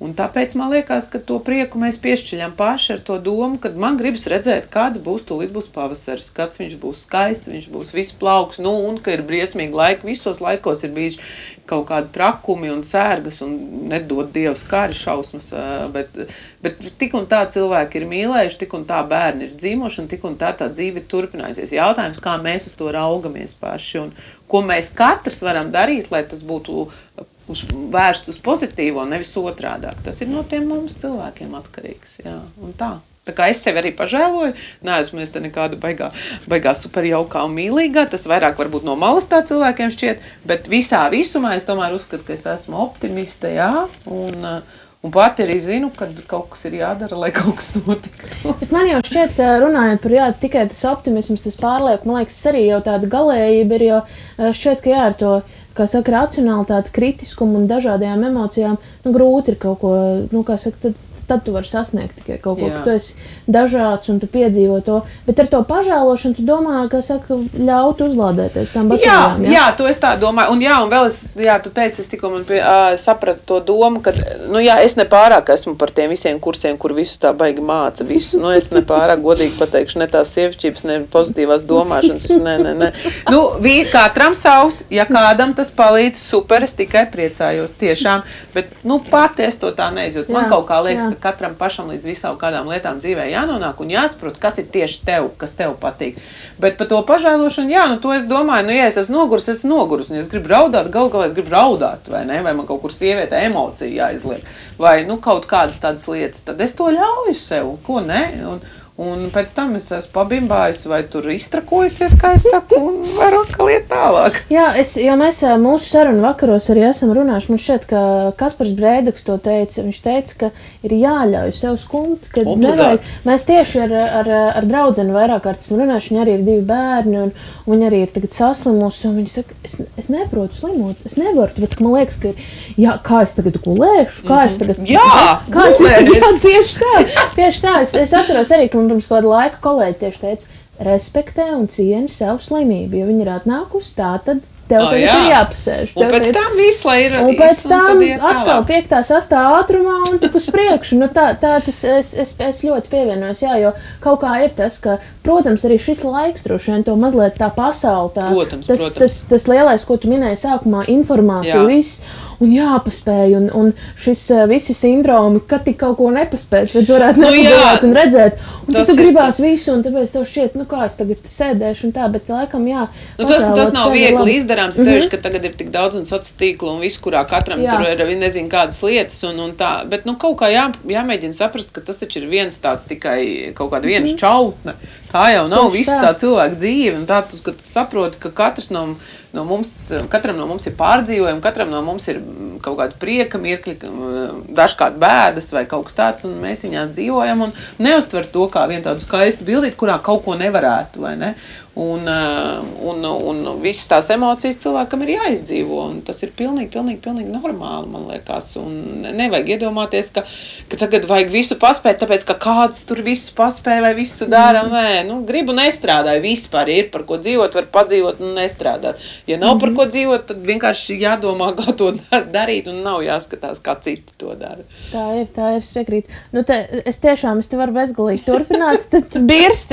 Un tāpēc man liekas, ka to prieku mēs piešķiļam paši ar to domu, kad man gribas redzēt, kāda tūlīt būs pavasaris, kāds viņš būs skaists, viņš būs viss plauks, un ka ir briesmīgi laiki. Visos laikos ir bijis kaut kādi trakumi un sērgas un nedod Dievs kāri šausmas, bet tik un tā cilvēki ir mīlējuši, tik un tā bērni ir dzīvoši un tik un tā dzīve ir turpinājusies. Jautājums, kā mēs uz to raugamies paši un ko mēs katrs varam darīt, lai tas būtu vērsts uz pozitīvo, nevis otrādāk. Tas ir no tiem mums cilvēkiem atkarīgs. Jā, un tā. Tā kā es sevi arī pažēloju, neesmu es te nekāda baigā superjaukā un mīlīgā, tas vairāk varbūt no malas tā cilvēkiem šķiet, bet visumā es tomēr uzskatu, ka es esmu optimiste, jā, un pati arī zinu, kad kaut kas ir jādara, lai kaut kas notiktu. Bet man jau šķiet, ka runājot par tikai tas optimisms, tas pārliek, man liekas, arī jau tāda galējība ir, jo šķiet, ka ar to, kā saka, racionalitāti, kritiskumu un dažādajām emocijām, grūti ir kaut ko, kā saka, tad tu vari sasniegt tikai kaut ko, ka tu esi dažāds un tu piedzīvo to, bet ar to pažēlošanu tu domā, kā saka, ļaut uzlādēties tām baterijām. Jā, to es tā domāju, un vēl tu teici, es tikko sapratu to domu, ka, es nepārāk esmu par tiem visiem kursiem, kur visu tā baigi māca, visu, es nepārāk godīgi pateikšu, ne tās sievišķības, ne pozitīvās domāšanas, ne. Katram savs, ja kādam tas palīdz, super, es tikai priecājos tiešām, bet, pati es to tā neizjūtu. Man kaut kā liekas, ka katram pašam līdz visām kādām lietām dzīvē jānonāk un jāsaprot, kas ir tieši tev, kas tev patīk. Bet par to pažēlošanu, to es domāju, ja es esmu nogurus, un ja es gribu raudāt, galā es gribu raudāt, vai ne, vai man kaut kur sievietē emocija jāizliek, vai, kaut kādas tādas lietas, tad es to ļauju sev, ko ne, un pēc tam es esmu pabimbājusi vai tur iztrakojusies, kā es saku, un varu atkal iet tālāk. Jā, jo mēs mūsu sarunu vakaros arī esam runājuši. Man šķiet, ka Kaspars Brēdeks to teica. Viņš teica, ka ir jāļauj sev skumt, ka nevajag. Mēs tieši ar draudzeni vairāk kārt esam runājuši. Viņa arī ir 2 bērni, un viņa arī ir tagad saslimusi. Un viņa saka, es neprotu slimot, es nevaru, tāpēc, ka man liekas, ka kā es tagad gulēšu, kā es tagad... Tieši tā. Es atceros arī, ka man pirms kāda laika kolēģi tieši teica, respektē un cieni savu slimību, jo viņi ir atnākusi tā, tad tev tagad ir jāpasēž. Un pēc tam viss, lai ir... Un pēc tam atkal 5. 6. ātrumā un tik uz priekšu. Es ļoti pievienojos, jo kaut kā ir tas, ka, protams, arī šis laiks droši vien to mazliet tā pasauli, tas lielais, ko tu minēji sākumā, informācija, viss, un jāpaspēj, un šis visi sindromi, kad tik kaut ko nepaspēt, redz varētu nepagājāt un redzēt, un tad tu gribās visu, un tāpēc tev šķiet, kā es tagad sēdēšu un tā, bet laikam, tas nav viegli izdarāms, ceļš, ka tagad ir tik daudz un sociālo tīklu un viss, kurā katram tur ir nezinu kādas lietas un tā, bet kaut kā jāmēģina saprast, ka tas taču ir viens tāds tikai kaut kāda viena šķautne. Tā jau nav visa tā cilvēka dzīve, un tā, ka tu saproti, ka katram no mums ir pārdzīvojumi, katram no mums ir kaut kāda prieka mirkļi, dažkārt bēdas vai kaut kas tāds, un mēs viņās dzīvojam un neuztver to kā vienu tādu skaistu bildīti, kurā kaut ko nevarētu, vai ne? Un visas tās emocijas cilvēkam ir jāizdzīvo, un tas ir pilnīgi normāli, man liekas, un nevajag iedomāties, ka tagad vajag visu paspēt, tāpēc, ka kāds tur visu paspēja vai visu dara, gribu nestrādāju, vispār ir par ko dzīvot, var padzīvot un nestrādāt. Ja nav par ko dzīvot, tad vienkārši jādomā, kā to darīt, un nav jāskatās, kā citi to dara. Tā ir, es piekrītu. Es te varu bezgalīgi turpināt, tad birst.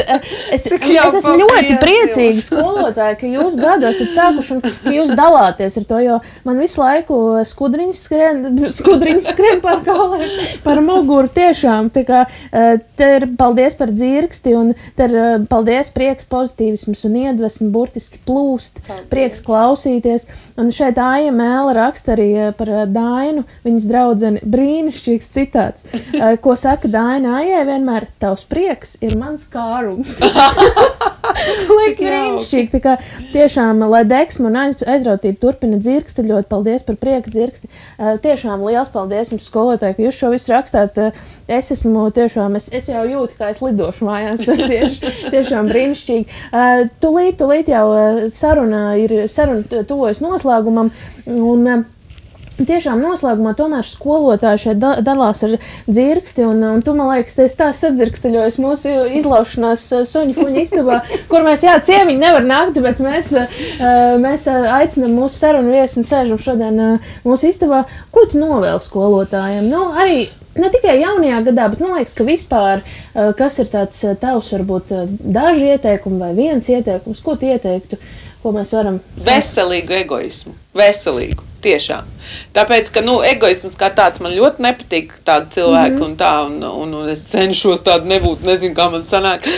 Es esmu ļoti priecīgi skolotāji, ka jūs gadu esat sākuši un ka jūs dalāties ar to, jo man visu laiku skudriņas skrien par kauliem, par muguru tiešām. Tā kā te ir paldies par dzirksti un te ir paldies, prieks, pozitīvisms un iedvesmi burtiski plūst, prieks klausīties. Un šeit Aija Mēle raksta arī par Dainu, viņas draudzeni, brīnišķīgs citāts, ko saka Daina Aijai vienmēr, tavs prieks ir mans kārums. Liekas brīnišķīgi, tā kā tiešām, lai deksme un aizrautība turpina dzirksti, ļoti paldies par prieka dzirksti. Tiešām liels paldies jums, skolotāji, ka jūs šo visu rakstāt. Es esmu tiešām, es jau jūtu, kā es lidošu mājās, tas ir tiešām brīnišķīgi. Tūlīt jau saruna tuvojas noslēgumam, un tiešām noslēgumā tomēr skolotāji šeit dalās ar dzirksti, un tu, man liekas, tā sadzirksteļojas mūsu izlaušanās suņu fuņu istabā, kur mēs, ciemiņi nevar nākt, tāpēc mēs aicinam mūsu sarunu viesi un sēžam šodien mūsu istabā. Ko tu novēli skolotājiem? Nu, arī ne tikai jaunajā gadā, bet man liekas, ka vispār, kas ir tāds tavs, varbūt daži ieteikumi vai viens ieteikums, ko tu ieteiktu, ko mēs varam Veselīgu egoismu. Veselīgu. Tiešām. Tāpēc, ka, egoisms kā tāds man ļoti nepatīk tādi cilvēki un tā, un es cenšos tādu nebūt, nezinu, kā man sanāk.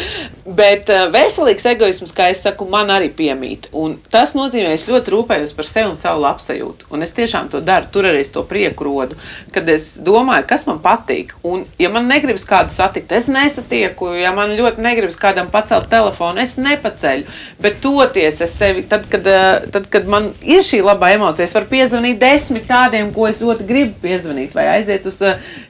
Bet veselīgs egoisms, kā es saku, man arī piemīt. Un tas nozīmē, es ļoti rūpējos par sevi un savu labsajūtu. Un es tiešām to daru, tur arī es to prieku rodu, kad es domāju, kas man patīk. Un, ja man negribas kādu satikt, es nesatieku. Ja man ļoti negribas kādam pacelt telefonu, es nepaceļu. Bet toties es sevi, tad, kad man ir šī labā emocija, es varu piezvanīt 10 tādiem, ko es ļoti gribu piezvanīt, vai aiziet uz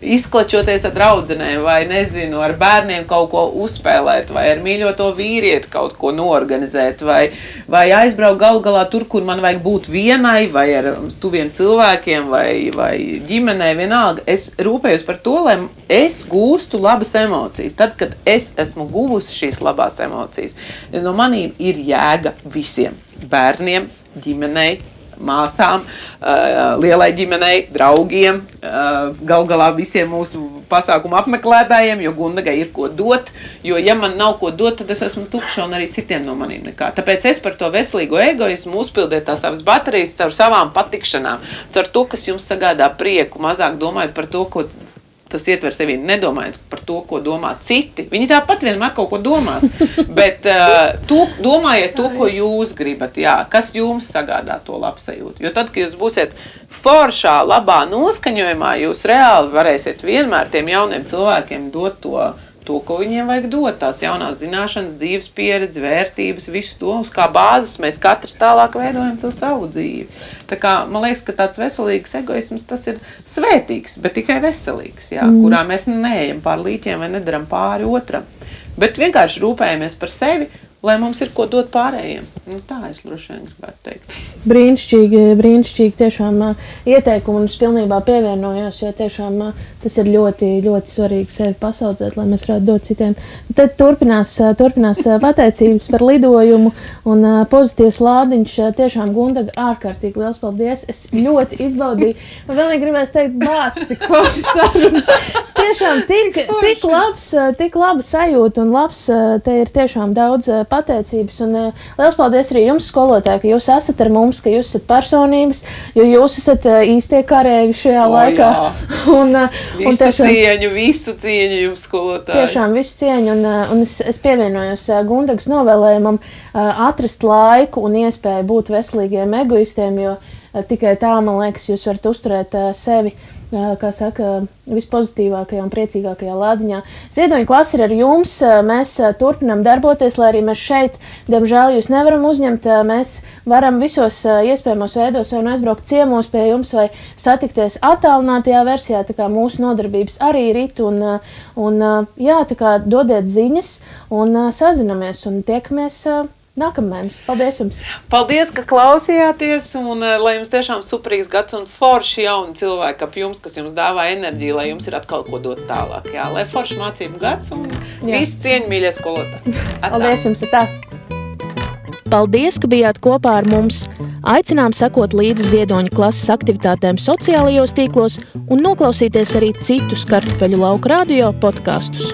izklačoties ar draudzenēm, vai nezinu, ar bērniem kaut ko uzspēlēt, vai ar mīļoto vīrieti kaut ko noorganizēt, vai aizbraukt galu galā tur, kur man vajag būt vienai, vai ar tuviem cilvēkiem, vai ģimenei, vienalga. Es rūpējos par to, lai es gūstu labas emocijas. Tad, kad es esmu guvusi šīs labās emocijas, no manīm ir jēga visiem bērniem, ģimenei, māsām, lielai ģimenei, draugiem, gal galā visiem mūsu pasākumu apmeklētājiem, jo Gundagai ir ko dot, jo ja man nav ko dot, tad es esmu tukša un arī citiem no manīm nekā. Tāpēc es par to veselīgo egoismu uzpildiet tās savas baterijas caur savām patikšanām, caur to, kas jums sagādā prieku, mazāk domājot par to, ko tas ietver sevi, nedomājot par to, ko domā citi. Viņi tāpat vienmēr kaut ko domās, bet domājiet to, ko jūs gribat, kas jums sagādā to labsajūtu. Jo tad, kad jūs būsiet foršā, labā noskaņojumā, jūs reāli varēsiet vienmēr tiem jauniem cilvēkiem dot to, ko viņiem vajag dot, tās jaunās zināšanas, dzīves pieredzi, vērtības, visu to, uz kā bāzes mēs katrs tālāk veidojam to savu dzīvi. Tā kā, man liekas, ka tāds veselīgs egoisms, tas ir svētīgs, bet tikai veselīgs, kurā mēs neejam pār līķiem vai nedaram pāri otram. Bet vienkārši rūpējamies par sevi, lai mums ir ko dot pārējiem. Tā es droši vien gribētu teikt. Brīnišķīgi tiešām ieteikumi, un es pilnībā pievienojos, jo tiešām tas ir ļoti, ļoti svarīgi sevi pasaudzēt, lai mēs varētu dot citiem. Tad turpinās pateicības par lidojumu un pozitīvs lādiņš. Tiešām, Gundaga, ārkārtīgi liels paldies. Es ļoti izbaudīju. Man vēl gribēs teikt, bāc, cik forši saruna. Tiešām tik laba sajūta un labs, te ir tiešām daudz pateicības. Un liels paldies arī jums, skolotāji, ka jūs esat ar mums, ka jūs esat personības, jo jūs esat īstie karēvi šajā laikā. Visu cieņu jums, skolotāji. Tiešām visu cieņu, un es pievienojos Gundagas novēlējumam atrast laiku un iespēju būt veselīgiem egoistiem, jo tikai tā, man liekas, jūs varat uzturēt sevi, kā saka, vispozitīvākajā un priecīgākajā lādiņā. Ziedoņa klase ir ar jums, mēs turpinām darboties, lai arī mēs šeit, diemžēl, jūs nevaram uzņemt, mēs varam visos iespējamos veidos vai aizbraukt ciemos pie jums vai satikties attālinātajā versijā, tā kā mūsu nodarbības arī rit, un tā kā dodiet ziņas un sazinamies un tiekamies nākamēnes. Paldies jums! Paldies, ka klausījāties, un lai jums tiešām superīgs gads un forši jauni cilvēki ap jums, kas jums dāvā enerģiju, lai jums ir atkal ko dot tālāk. Lai forši mācību gads un visu cieņu, mīļie skolotāji. Paldies jums, tā! Paldies, ka bijāt kopā ar mums! Aicinām sekot līdzi Ziedoņa klases aktivitātēm sociālajos tīklos un noklausīties arī citus Kartupeļu lauku radio podkastus.